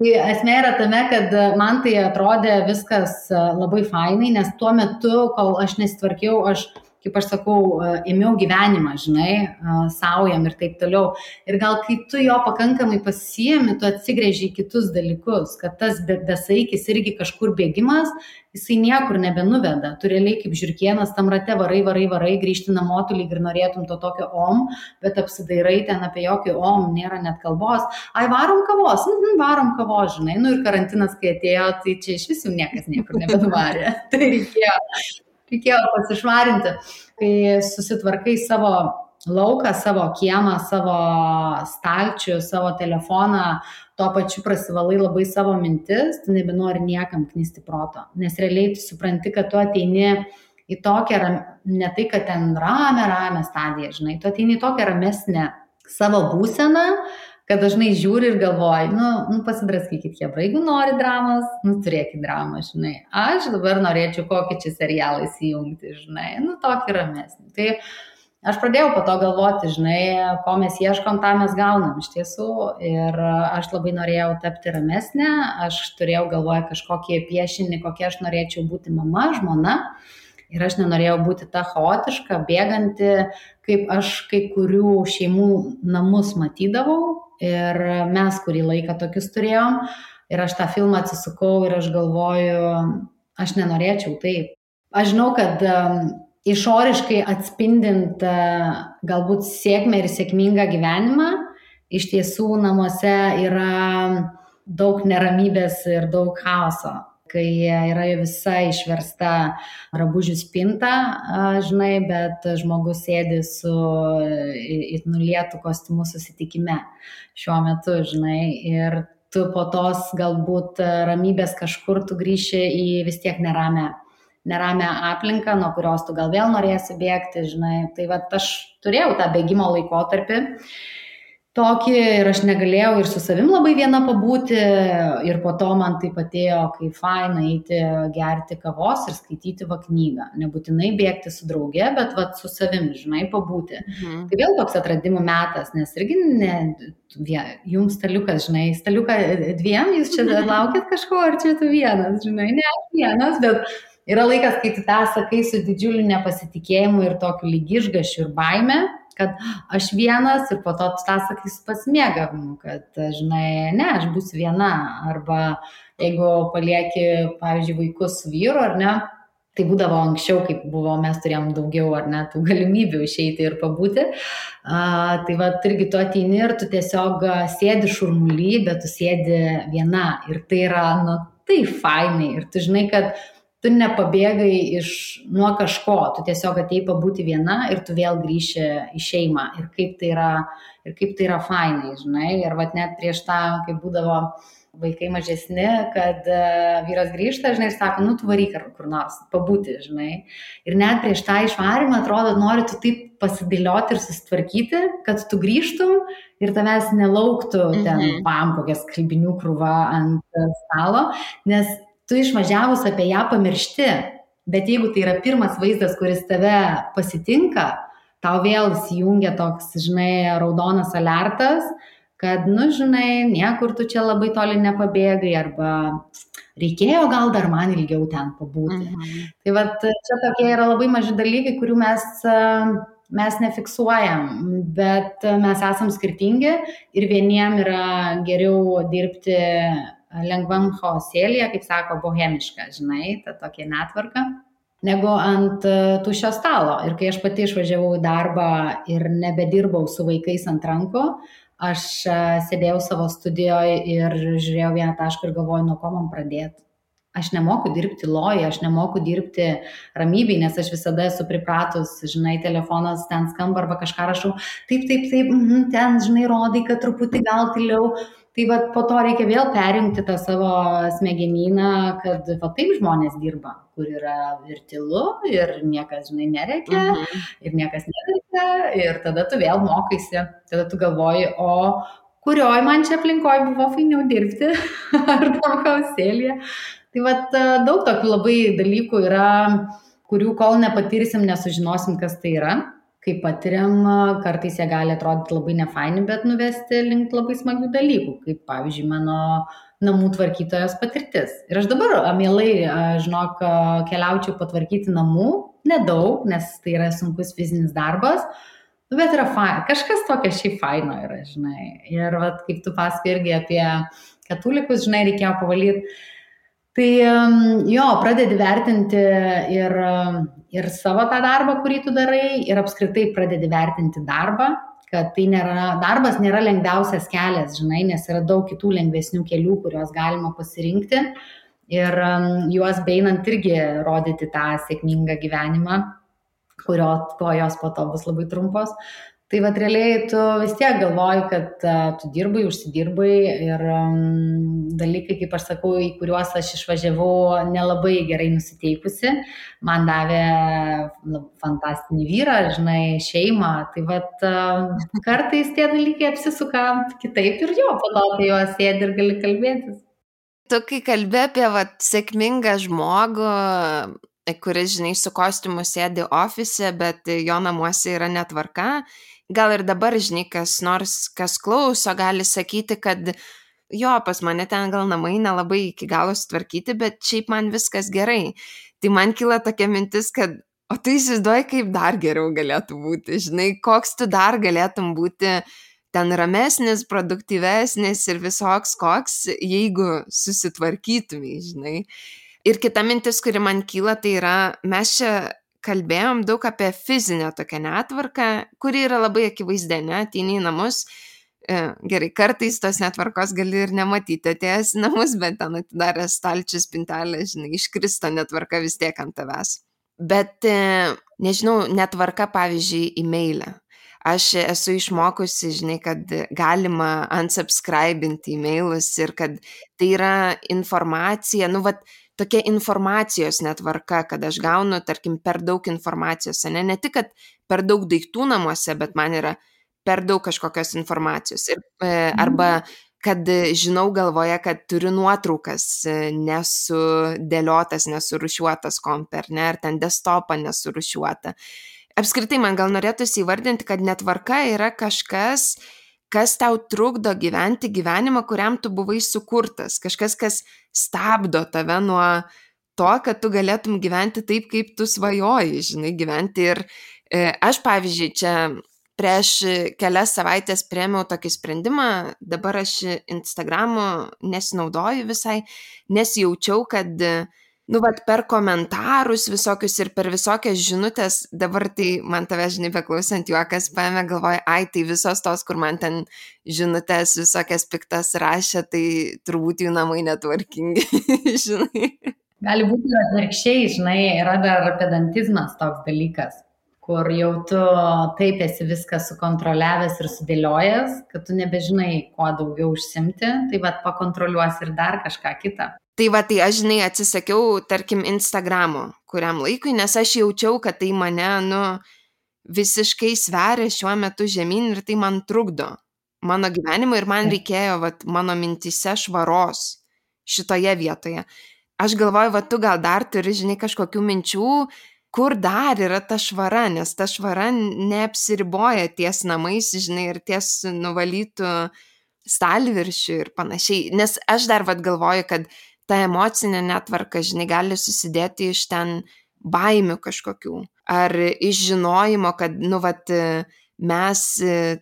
Tai esmė yra tame, kad man tai atrodė viskas labai fainai, nes tuo metu, kol aš nesitvarkiau, kaip aš sakau, ėmiau gyvenimą, žinai, saujam ir taip toliau. Ir gal kai tu jo pakankamai pasiemi, tu atsigrėži į kitus dalykus, kad tas besaikis irgi kažkur bėgimas, jisai niekur nebenuveda. Tu realiai kaip žiurkėnas tam rate varai, grįžti namo, tu lyg ir norėtum to tokio bet apsidairai ten apie jokį nėra net kalbos. Ai, varom kavos, varom kavos, žinai. Nu ir karantinas, kai atėjo, tai čia iš visų niekas niekur nebenuvarė. Tai reikėjo pasišvarinti, kai susitvarkai savo lauką, savo kiemą, savo stalčių, savo telefoną, tuo pačiu prasivalai labai savo mintis, tu nebenori niekam knisti proto, nes realiai tu supranti, kad tu ateini į tokią, ne tai, kad ten ramę stadiją, žinai, tu ateini į tokią ramesnę savo būseną, kad dažnai žiūri ir galvoji, pasidraskykit, jeigu nori dramos, turėkit dramą, žinai. Aš dabar norėčiau kokį čia serialą įsijungti, žinai, tokį ramesnį. Tai aš pradėjau po to galvoti, žinai, ko mes ieškom, tą mes gaunam iš tiesų. Ir aš labai norėjau tapti ramesnė, aš turėjau galvoje kažkokį piešinį, kokie aš norėčiau būti mama, žmona. Ir aš nenorėjau būti ta chaotiška, bėganti, kaip aš kai kurių šeimų namus matydavau. Ir mes kurį laiką tokius turėjom. Ir aš tą filmą atsisukau ir aš galvoju, aš nenorėčiau taip. Aš žinau, kad išoriškai atspindint galbūt sėkmę ir sėkmingą gyvenimą, iš tiesų namuose yra daug neramybės ir daug chaoso. Kai yra visa išversta drabužių spinta, žinai, bet žmogus sėdi su nulietu kostiumu susitikime šiuo metu, žinai, ir tu po tos galbūt ramybės kažkur tu grįši į vis tiek neramę aplinką, nuo kurios tu gal vėl norėsi bėgti, žinai. Tai va, aš turėjau tą bėgimo laikotarpį tokį ir aš negalėjau ir su savim labai viena pabūti ir po to man taip atėjo, kai faina eiti gerti kavos ir skaityti knygą. Nebūtinai bėgti su drauge, bet su savim, žinai, pabūti. Tai vėl toks atradimų metas, nes irgi jums staliukas, žinai, staliuką dviem, jūs čia laukit kažko, ar čia tu vienas, žinai, ne aš vienas, bet yra laikas, kai tu tą sakai su didžiuliu nepasitikėjimu ir tokiu lyg išgąsčiu ir baime, kad aš vienas ir po to tu tą sakai su pasimėgavimu, kad, žinai, ne, aš būsiu viena. Arba jeigu palieki, pavyzdžiui, vaikus su vyru, ar ne, tai būdavo anksčiau, kaip buvo, mes turėjom daugiau, ar ne, tų galimybių išeiti ir pabūti. Tai va, irgi tu ateini ir tu tiesiog sėdi šurmuly, bet tu sėdi viena. Ir tai yra, tai fainai. Ir tu žinai, kad tu nepabėgai nuo kažko, tu tiesiog atėjai pabūti viena ir tu vėl grįši į šeimą. Ir kaip tai yra fainai, žinai. Ir vat net prieš tą, kai būdavo vaikai mažesni, kad vyras grįžta, žinai, ir sako, tu varyk kur nors, pabūti, žinai. Ir net prieš tą išvarimą, atrodo, nori tu taip pasidėlioti ir susitvarkyti, kad tu grįžtum ir tavęs nelauktų ten kokia skalbinių krūva ant stalo, nes tu išvažiavus apie ją pamiršti, bet jeigu tai yra pirmas vaizdas, kuris tave pasitinka, tau vėl įsijungia toks, žinai, raudonas alertas, kad, žinai, niekur tu čia labai toli nepabėgai, arba reikėjo gal dar man ilgiau ten pabūti. Tai va, čia tokie yra labai maži dalykai, kurių mes nefiksuojam, bet mes esam skirtingi ir vieniem yra geriau dirbti lengvam chaosėlyje, kaip sako, bohemiška, žinai, ta tokia netvarka, negu ant tuščio stalo. Ir kai aš pati išvažiavau į darbą ir nebedirbau su vaikais ant rankų, aš sėdėjau savo studijoje ir žiūrėjau vieną tašką ir galvojau, nuo ko man pradėti. aš nemoku dirbti loja, aš nemoku dirbti ramybėj, nes aš visada esu pripratus, žinai, telefonas ten skamba arba kažką rašau, taip, ten, žinai, rodai, kad truputį gal tyliau. Tai va po to reikia vėl perjungti tą savo smegenyną, kad va taip žmonės dirba, kur yra ir tylu, ir niekas, žinai, nereikia, ir niekas nereikia, ir tada tu vėl mokaisi, tada tu galvoji, o kurioj man čia aplinkoj buvo fainiau dirbti, ar tam kausėlėje. Tai vat daug tokių labai dalykų yra, kurių kol nepatirsim, nesužinosim, kas tai yra. Kai patiriam, kartais jie gali atrodyti labai nefaini, bet nuvesti link labai smagių dalykų, kaip pavyzdžiui mano namų tvarkytojos patirtis. Ir aš dabar mielai, žinok, keliaučiau patvarkyti namų, nedaug, nes tai yra sunkus fizinis darbas, bet yra kažkas tokio šiaip faino yra, žinai. Ir vat, kaip tu pasakai irgi apie katulikus, žinai, reikėjo pavalyti. Tai jo, pradedi vertinti ir savo tą darbą, kurį tu darai, ir apskritai pradedi vertinti darbą, kad tai darbas nėra lengviausias kelias, žinai, nes yra daug kitų lengvesnių kelių, kuriuos galima pasirinkti ir juos beinant irgi rodyti tą sėkmingą gyvenimą, kojos po to bus labai trumpos. Tai vat realiai tu vis tiek galvoji, kad tu dirbai, užsidirbai ir dalykai, kaip aš sakau, į kuriuos aš išvažiavau nelabai gerai nusiteikusi, man davė fantastinį vyrą, žinai, šeimą. Tai vat kartais tie dalykai apsisuka kitaip ir jo, po to apie juos sėdi ir gali kalbėtis. Tu kai kalbė apie sėkmingą žmogų, kuris, žinai, su kostiumu sėdi ofise, bet jo namuose yra netvarka, gal ir dabar, žinai, kas nors, kas klauso, gali sakyti, kad jo, pas mane ten gal namai nelabai iki galo sutvarkyti, bet šiaip man viskas gerai. Tai man kyla tokia mintis, kad o tu įsivaizduoji, kaip dar geriau galėtų būti, žinai, koks tu dar galėtum būti ten ramesnis, produktyvesnis ir visoks koks, jeigu susitvarkytumai, žinai. Ir kita mintis, kuri man kyla, tai yra, mes čia kalbėjom daug apie fizinę tokią netvarką, kuri yra labai akivaizdė, ne, ateini į namus, gerai, kartais tos netvarkos gali ir nematyti atėjęs į namus, bet ten atidaręs stalčius, spintelę, žinai, iškrista netvarka vis tiek ant tavęs. Bet, nežinau, netvarka, pavyzdžiui, e-mailę. Aš esu išmokusi, žinai, kad galima unsubscribinti e-mailus ir kad tai yra informacija, tokia informacijos netvarka, kad aš gaunu, tarkim, per daug informacijos, ne tik, kad per daug daiktų namuose, bet man yra per daug kažkokios informacijos. Arba, kad žinau galvoje, kad turiu nuotraukas nesudėliotas, nesurušiuotas kompe, ar ten desktopą nesurušiuotą. Apskritai, man gal norėtųsi įvardinti, kad netvarka yra kažkas, kas tau trukdo gyventi gyvenimą, kuriam tu buvai sukurtas. Kažkas, kas stabdo tave nuo to, kad tu galėtum gyventi taip, kaip tu svajoji, žinai, gyventi. Ir aš, pavyzdžiui, čia prieš kelias savaitės priėmiau tokį sprendimą, dabar aš Instagramu nesinaudoju visai, nes jaučiau, kad per komentarus visokius ir per visokias žinutės, dabar tai man tave, žinai, beklausant juokas paėmė, galvoja, tai visos tos, kur man ten žinutės visokias piktas rašė, tai turbūt jų namai netvarkingi, žinai. Gali būti atvirkščiai, žinai, yra dar pedantizmas toks dalykas, kur jau tu taip esi viską sukontroliavęs ir sudėliojęs, kad tu nebežinai, kuo daugiau užsimti, tai pakontroliuosi ir dar kažką kitą. Tai aš, žinai, atsisakiau, tarkim, Instagramo kuriam laikui, nes aš jaučiau, kad tai mane, visiškai sveria šiuo metu žemyn ir tai man trukdo mano gyvenimui ir man reikėjo, mano mintise švaros šitoje vietoje. Aš galvoju, tu gal dar turi, žinai, kažkokių minčių, kur dar yra ta švara, nes ta švara neapsiriboja ties namais, žinai, ir ties nuvalytų stalviršių ir panašiai. Nes aš dar galvoju, kad ta emocinė netvarka, žinai, gali susidėti iš ten baimių kažkokių. Ar iš žinojimo, kad, mes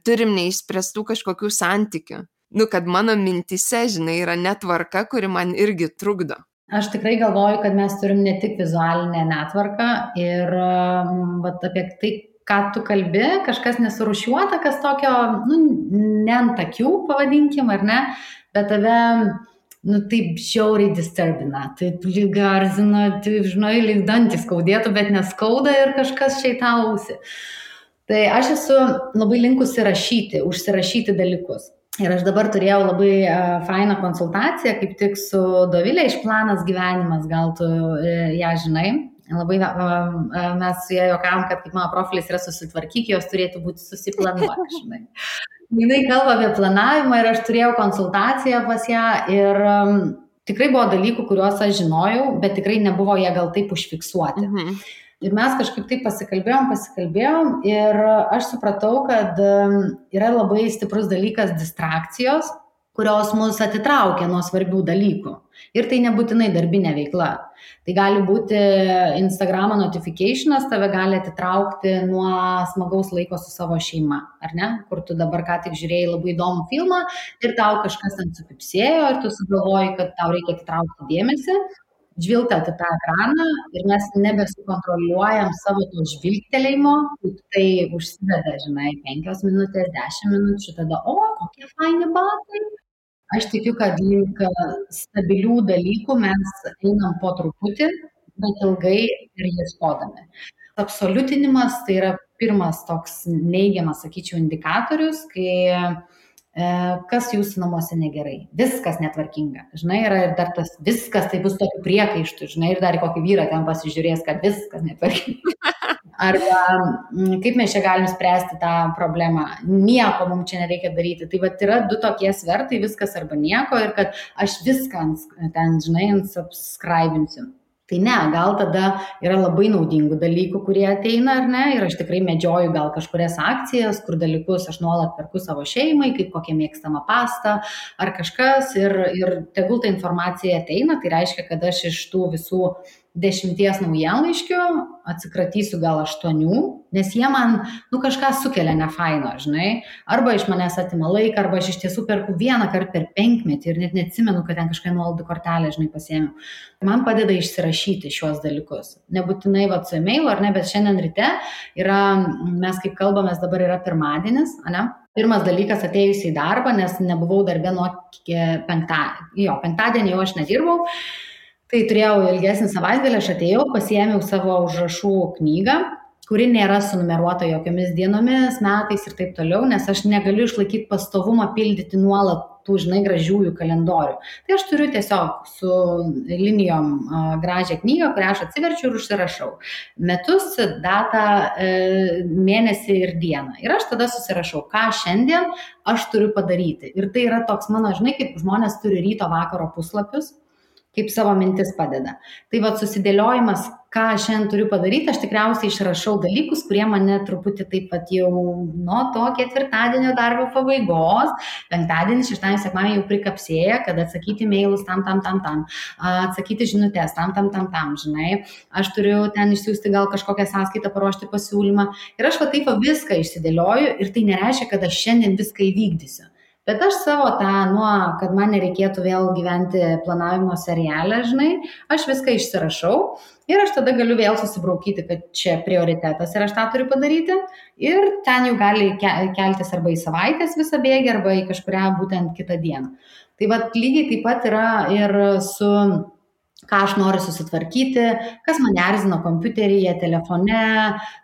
turim neišspręstų kažkokių santykių. Kad mano mintise, žinai, yra netvarka, kuri man irgi trukdo. Aš tikrai galvoju, kad mes turim ne tik vizualinę netvarką ir apie tai, ką tu kalbi, kažkas nesurūšiuota, kas tokio, ne ant akių, pavadinkim, ar ne, bet tave taip žiauriai disturbina, taip lyg garzina, taip, žinai, lyg dantys skaudėtų, bet neskauda ir kažkas čia į tą ausį. Tai aš esu labai linkusi užsirašyti dalykus. Ir aš dabar turėjau labai fainą konsultaciją, kaip tik su Dovilė iš Planas gyvenimas, gal tu ją žinai. Labai mes su ją juokavom, kad kaip mano profilis yra susitvarkyk, jos turėtų būti susiplanuoti, žinai. Jinai kalba apie planavimą ir aš turėjau konsultaciją pas ją ir tikrai buvo dalykų, kuriuos aš žinojau, bet tikrai nebuvo jie gal taip užfiksuoti. Ir mes kažkaip taip pasikalbėjom ir aš supratau, kad yra labai stiprus dalykas distrakcijos, kurios mus atitraukia nuo svarbių dalykų. Ir tai nebūtinai darbinė veikla. Tai gali būti Instagramo notificationas, tave gali atitraukti nuo smagaus laiko su savo šeima, ar ne? Kur tu dabar ką tik žiūrėjai labai įdomų filmą ir tau kažkas ten sukipsėjo ir tu sugalvoji, kad tau reikia atitraukti dėmesį, žvilgtelt į tą ekraną ir mes nebesukontroliuojam savo to žvilgtelėjimo, tai užsiveda, žinai, 5 minutės, 10 minučių, tada, kokie faini batai. Aš tikiu, kad link stabilių dalykų mes einam po truputį, bet ilgai ir ieškodami. Absoliutinimas tai yra pirmas toks neigiamas, sakyčiau, indikatorius, kai kas jūsų namuose negerai, viskas netvarkinga, žinai, yra ir dar tas viskas, tai bus tokių priekaištų, žinai, ir dar kokį vyrą ten pasižiūrės, kad viskas netvarkinga. Arba kaip mes čia galim spręsti tą problemą, nieko mums čia nereikia daryti. Tai vat yra 2 tokie svertai, viskas arba nieko ir kad aš viską ten, žinai, subscribinsiu. Tai ne, gal tada yra labai naudingų dalykų, kurie ateina ar ne, ir aš tikrai medžioju gal kažkurias akcijas, kur dalykus aš nuolat perku savo šeimai, kaip kokia mėgstama pasta ar kažkas ir tegul ta informacija ateina, tai reiškia, kad aš iš tų visų 10 naujienlaiškių atsikratysiu gal 8, nes jie man, kažką sukelia nefaino, žinai, arba iš manęs atima laiką, arba aš iš tiesų perku vieną kartą per 5 metį ir net neatsimenu, kad ten kažką nuolaidų kortelę, žinai, pasiėmiau. Man padeda išsirašyti šiuos dalykus. Nebūtinai su e-mailu, ar ne, bet šiandien ryte yra, mes kaip kalbamės, dabar yra pirmadienis, ne? Pirmas dalykas atėjus į darbą, nes nebuvau darbe nuo penktadienį jau aš nedirbau. Tai turėjau ilgesnį savaitgalį, aš atėjau, pasiėmiau savo užrašų knygą, kuri nėra sunumeruota jokiomis dienomis, metais ir taip toliau, nes aš negaliu išlaikyti pastovumą pildyti nuolat tų, žinai, gražiųjų kalendorių. Tai aš turiu tiesiog su linijom gražią knygą, kurią aš atsiverčiu ir užsirašau. Metus, datą, mėnesį ir dieną. Ir aš tada susirašau, ką šiandien aš turiu padaryti. Ir tai yra toks mano, žinai, kaip žmonės turi ryto vakaro puslapius, kaip savo mintis padeda. Tai susidėliojimas, ką šiandien turiu padaryti, aš tikriausiai išrašau dalykus, kurie mane truputį taip pat jau nuo to ketvirtadienio darbo pabaigos, penktadienį, šeštadienį, sekmadienį jau prikapsėja, kad atsakyti mailus tam, atsakyti žinutės tam, žinai. Aš turiu ten išsiųsti gal kažkokią sąskaitą, paruošti pasiūlymą. Ir aš taip viską išsidėlioju ir tai nereiškia, kad aš šiandien viską įvykdysiu. Bet aš savo kad man nereikėtų vėl gyventi planavimo serialę, žinai, aš viską išsirašau ir aš tada galiu vėl susibraukyti, kad čia prioritetas ir aš tą turiu padaryti ir ten jau gali keltis arba į savaitės visą bėgį, arba į kažkurią būtent kitą dieną. Tai lygiai taip pat yra ir su ką aš noriu susitvarkyti, kas mane erzina kompiuteryje, telefone,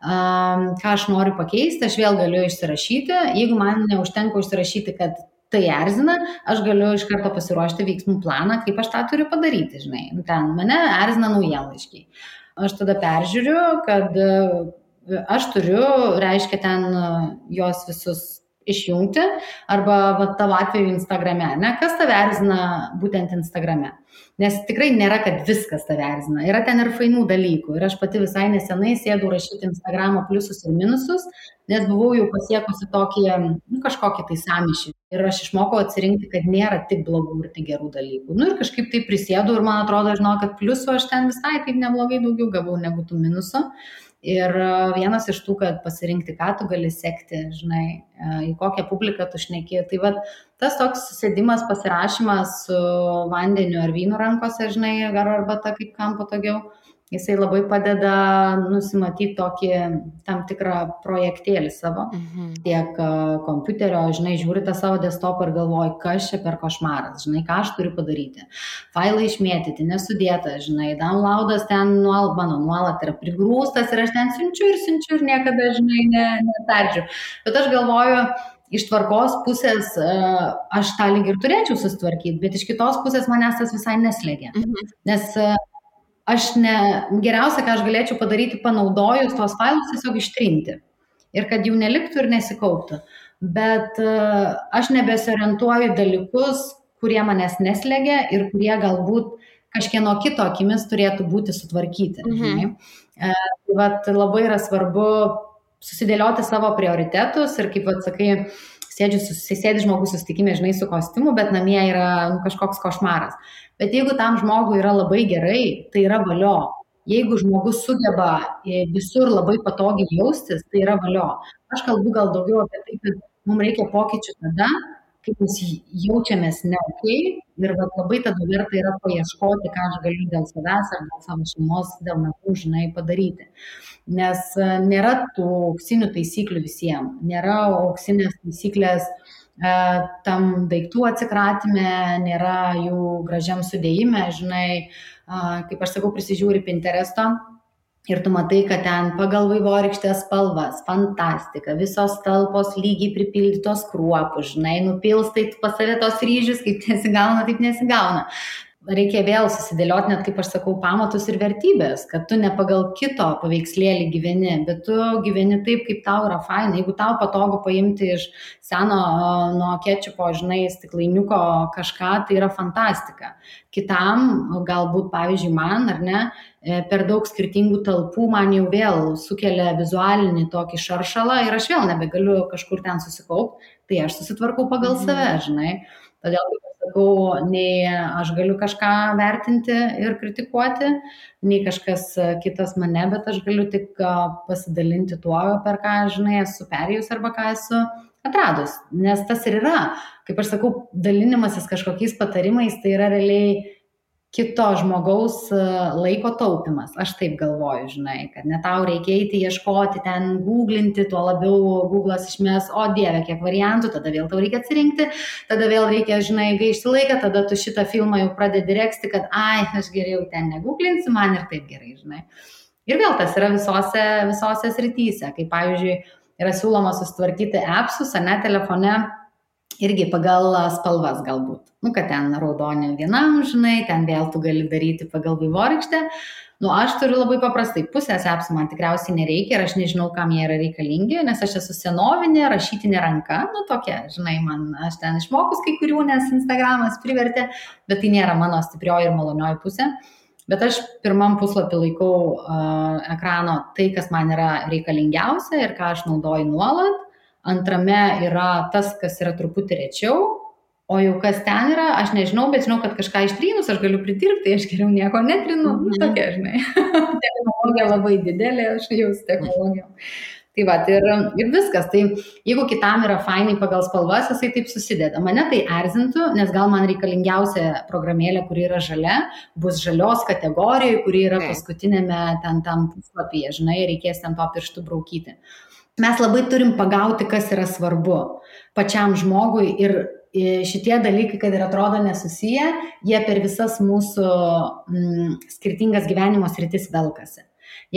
ką aš noriu pakeisti, aš vėl galiu išsirašyti. Jeigu man neužtenka išsirašyti, kad tai erzina, aš galiu iš karto pasiruošti veiksmų planą, kaip aš tą turiu padaryti, žinai. Ten mane erzina naujienlaiškiai. Aš tada peržiūriu, kad aš turiu, reiškia, ten jos visus išjungti, arba tavo atveju Instagrame, ne? Kas tave erzina būtent Instagrame? Nes tikrai nėra, kad viskas tave erzina. Yra ten ir fainų dalykų. Ir aš pati visai nesenai sėdau rašyti Instagramo pliusus ir minusus, nes buvau jau pasiekusi kažkokį tai sąmyšį. Ir aš išmokau atsirinkti, kad nėra tik blogų ir tik gerų dalykų. Ir kažkaip tai prisėdau ir man atrodo, kad pliusų aš ten visai taip neblogai daugiau gavau negu tų minusų. Ir vienas iš tų, kad pasirinkti, ką tu gali sekti, žinai, į kokią publiką tu šneki. Tai tas toks sėdimas, pasirašymas su vandeniu ar vynu rankose, žinai, ar arbata, kaip kam patogiau, Jisai labai padeda nusimatyti tokį tam tikrą projektėlį savo, tiek kompiuterio, žinai, žiūri tą savo desktopą ir galvoji, kas čia per košmaras, žinai, ką aš turiu padaryti. Failai išmėtyti, nesudėta, žinai, downloadas ten mano nuolat yra prigrūstas ir aš ten siunčiu ir niekada, žinai, netardžiu. Bet aš galvoju, iš tvarkos pusės aš tą lyg ir turėčiau susitvarkyti, bet iš kitos pusės manęs tas visai neslėgia. Nes geriausia, ką aš galėčiau padaryti, panaudojus tos failus, tiesiog ištrinti. Ir kad jų neliktų ir nesikauptų. Bet aš nebesiorientuoju dalykus, kurie manęs neslėgia ir kurie galbūt kažkieno kito akimis turėtų būti sutvarkyti. Vat labai yra svarbu susidėlioti savo prioritetus ir kaip atsakai, sėdi žmogus susitikime, žinai, su kostiumu, bet namie yra kažkoks košmaras. Bet jeigu tam žmogui yra labai gerai, tai yra valio. Jeigu žmogus sugeba visur labai patogiai jaustis, tai yra valio. Aš kalbu gal daugiau apie tai, kad mums reikia pokyčių tada, kaip mes jaučiamės neokiai ir labai tada verta yra paieškoti, ką aš galiu dėl savęs ar dėl savo šeimos, dėl namų, žinai, padaryti. Nes nėra tų auksinių taisyklių visiems, nėra auksinės taisyklės tam daiktų atsikratime, nėra jų gražiam sudėjime, žinai, kaip aš sakau, prisižiūri Pinteresto ir tu matai, kad ten pagal vaivorykštės spalvas, fantastika, visos talpos lygiai pripildytos kruopų, žinai, nupilstai pas save tos ryžius, kaip nesigauna, taip nesigauna. Reikia vėl susidėlioti, net kaip aš sakau, pamatus ir vertybės, kad tu ne pagal kito paveikslėlį gyveni, bet tu gyveni taip, kaip tau yra faina. Jeigu tau patogu paimti iš seno nuo kečupo, žinai, stiklainiuko kažką, tai yra fantastika. Kitam, galbūt, pavyzdžiui, man, ar ne, per daug skirtingų talpų man jau vėl sukelia vizualinį tokį šaršalą ir aš vėl nebegaliu kažkur ten susikaupti, tai aš susitvarkau pagal save, žinai. Todėl, kaip aš sakau, nei aš galiu kažką vertinti ir kritikuoti, nei kažkas kitas mane, bet aš galiu tik pasidalinti tuo, per ką, žinai, esu perėjus arba ką esu atradus. Nes tas ir yra, kaip aš sakau, dalinimasis kažkokiais patarimais, tai yra realiai kito žmogaus laiko taupimas. Aš taip galvoju, žinai, kad ne tau reikia eiti, ieškoti, ten googlinti, tuo labiau Google'as išmės, o dieve, kiek variantų, tada vėl tau reikia atsirinkti, tada vėl reikia, žinai, gaišti laiką, tada tu šitą filmą jau pradedi reksti, kad aš geriau ten negooglinsiu, man ir taip gerai, žinai. Ir vėl tas yra visose srityse, kaip pavyzdžiui, yra siūloma susitvarkyti appsus, ar ne, telefone, irgi pagal spalvas galbūt. Kad ten raudonė vienam, žinai, ten vėl tu gali daryti pagal vaivorykštę. Aš turiu labai paprastai, pusės appsų man tikriausiai nereikia ir aš nežinau, kam jie yra reikalingi, nes aš esu senovinė, rašytinė ranka, tokia, žinai, aš ten išmokus kai kurių, nes Instagramas privertė, bet tai nėra mano stiprioji ir malonioji pusė. Bet aš pirmam puslapį laikau ekrano tai, kas man yra reikalingiausia ir ką aš naudoju nuolat. Antrame yra tas, kas yra truputį rečiau, o jau kas ten yra, aš nežinau, bet žinau, kad kažką ištrynus aš galiu pridirbti, aš geriau nieko netrinu, tokia, žinai. Technologija labai didelė, aš jau su technologijom. Tai va, ir viskas. Tai jeigu kitam yra fainai pagal spalvas, jisai taip susideda. Mane tai erzintų, nes gal man reikalingiausia programėlė, kuri yra žalia, bus žalios kategorijoje, kuri yra paskutinėme ten tam puslapyje, žinai, reikės ten to pirštų braukyti. Mes labai turim pagauti, kas yra svarbu pačiam žmogui ir šitie dalykai, kad ir atrodo nesusiję, jie per visas mūsų skirtingas gyvenimo sritis velkasi.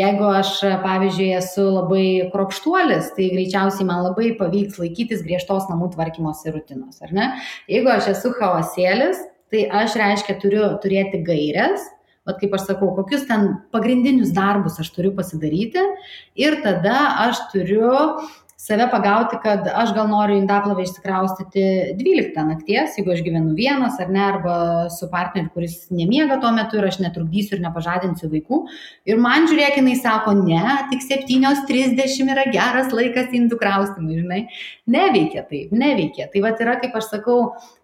Jeigu aš, pavyzdžiui, esu labai kruopštuolis, tai greičiausiai man labai pavyks laikytis griežtos namų tvarkymosi rutinos, ar ne? Jeigu aš esu chaosėlis, tai aš, reiškia, turiu turėti gaires, kaip aš sakau, kokius ten pagrindinius darbus aš turiu pasidaryti ir tada aš turiu save pagauti, kad aš gal noriu indaplovę išsikraustyti 12 nakties, jeigu aš gyvenu vienas ar ne, arba su partneriu, kuris nemiega tuo metu ir aš netrukdysiu ir nepažadinsiu vaikų. Ir man, žiūrėk, jinai sako, ne, tik 7:30 yra geras laikas indų kraustimui, žinai. Neveikia taip, neveikia. Tai vat yra, kaip aš sakau,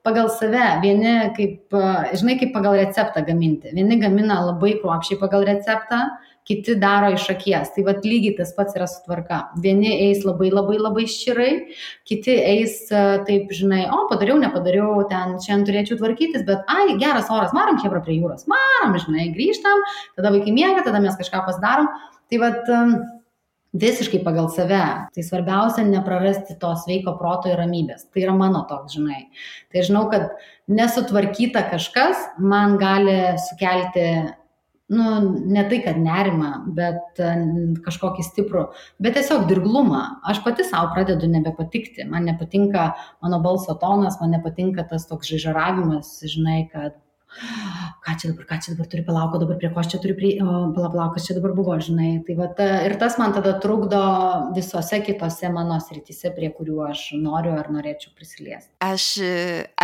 pagal save, vieni kaip, žinai, kaip pagal receptą gaminti. Vieni gamina labai kruopščiai pagal receptą, kiti daro iš akies. Tai vat lygiai tas pats yra su tvarka. Vieni eis labai labai labai ščirai, kiti eis taip, žinai, padariau, nepadariau, ten šiandien turėčiau tvarkytis, bet geras oras, varom chebra prie jūros, varom, žinai, grįžtam, tada vaikai miega, tada mes kažką pasidarom. Tai vat visiškai pagal save. Tai svarbiausia neprarasti to sveiko proto ir ramybės. Tai yra mano toks, žinai. Tai žinau, kad nesutvarkyta kažkas man gali sukelti, ne tai, kad nerimą, bet kažkokį stiprų, bet tiesiog dirglumą. Aš pati savo pradedu nebepatikti. Man nepatinka mano balso tonas, man nepatinka tas toks žaižaravimas, žinai, kad ką čia dabar turi palauko, dabar prie ko aš čia turiu palauk, kas čia dabar buvo, žinai. Tai vat, ir tas man tada trukdo visose kitose mano srityse, prie kurių aš noriu ar norėčiau prisiliesti. Aš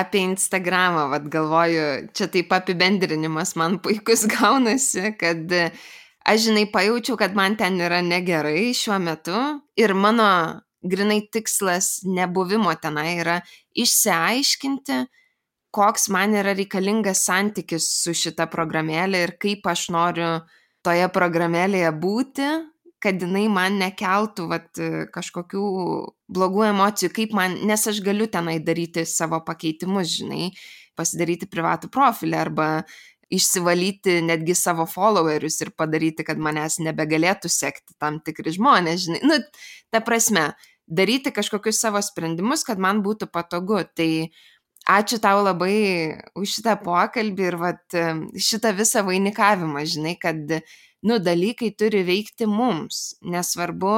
apie Instagramą galvoju, čia taip apibendrinimas man puikus gaunasi, kad aš, žinai, pajaučiau, kad man ten yra negerai šiuo metu ir mano grinai tikslas nebuvimo tenai yra išsiaiškinti, koks man yra reikalingas santykis su šita programėlė ir kaip aš noriu toje programėlėje būti, kad jinai man nekeltų kažkokių blogų emocijų, kaip man, nes aš galiu tenai daryti savo pakeitimus, žinai, pasidaryti privatų profilį arba išsivalyti netgi savo followerius ir padaryti, kad manęs nebegalėtų sekti tam tikri žmonės, žinai. Ta prasme, daryti kažkokius savo sprendimus, kad man būtų patogu. Tai ačiū tau labai už šitą pokalbį ir šitą visą vainikavimą, žinai, kad, dalykai turi veikti mums, nesvarbu,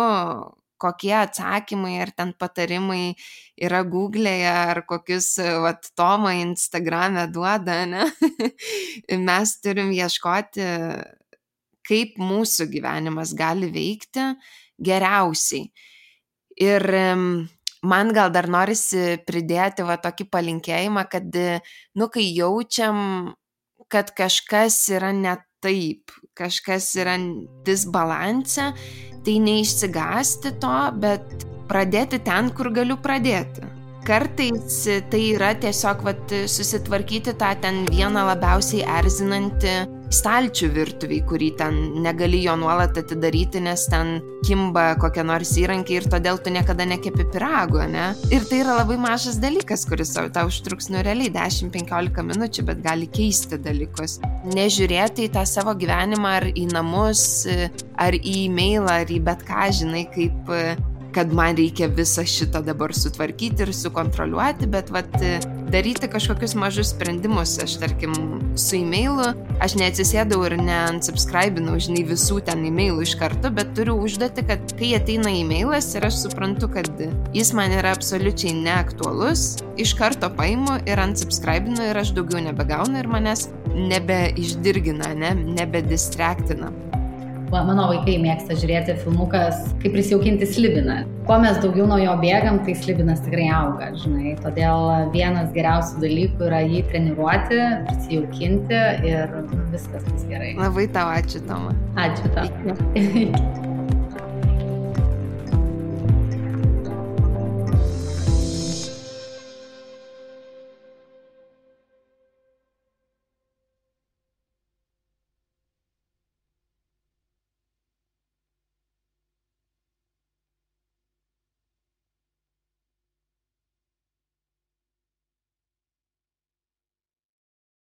kokie atsakymai ar ten patarimai yra Google'e ar kokius Toma Instagram'e duoda, ne? Mes turim ieškoti, kaip mūsų gyvenimas gali veikti geriausiai. Ir man gal dar norisi pridėti tokį palinkėjimą, kad, kai jaučiam, kad kažkas yra ne taip, kažkas yra disbalanse, tai neišsigąsti to, bet pradėti ten, kur galiu pradėti. Kartais tai yra tiesiog susitvarkyti tą ten vieną labiausiai erzinantį stalčių virtuviai, kurį ten negali jo nuolat atidaryti, nes ten kimba kokie nors įrankiai ir todėl tu niekada nekepi pyrago, ne? Ir tai yra labai mažas dalykas, kuris tau užtruks realiai 10-15 minučių, bet gali keisti dalykus. Nežiūrėti į tą savo gyvenimą ar į namus, ar į e-mailą, ar į bet ką, žinai, kaip kad man reikia visą šitą dabar sutvarkyti ir sukontroliuoti, bet daryti kažkokius mažus sprendimus. Aš, tarkim, su e-mailu, aš neatsisėdau ir neunsubscribinau, žinai, visų ten e-mailų iš karto, bet turiu užduoti, kad kai ateina e-mailas ir aš suprantu, kad jis man yra absoliučiai neaktualus, iš karto paimu ir unsubscribinu ir aš daugiau nebegaunu ir manęs nebeišdirgina, nebedistractina. Mano vaikai mėgsta žiūrėti filmukas, kaip prisijaukinti slibiną. Kuo mes daugiau nuo jo bėgam, tai slibinas tikrai auga, žinai. Todėl vienas geriausių dalykų yra jį treniruoti, prisijaukinti ir viskas bus gerai. Labai tau ačiū, Toma. Ačiū tau.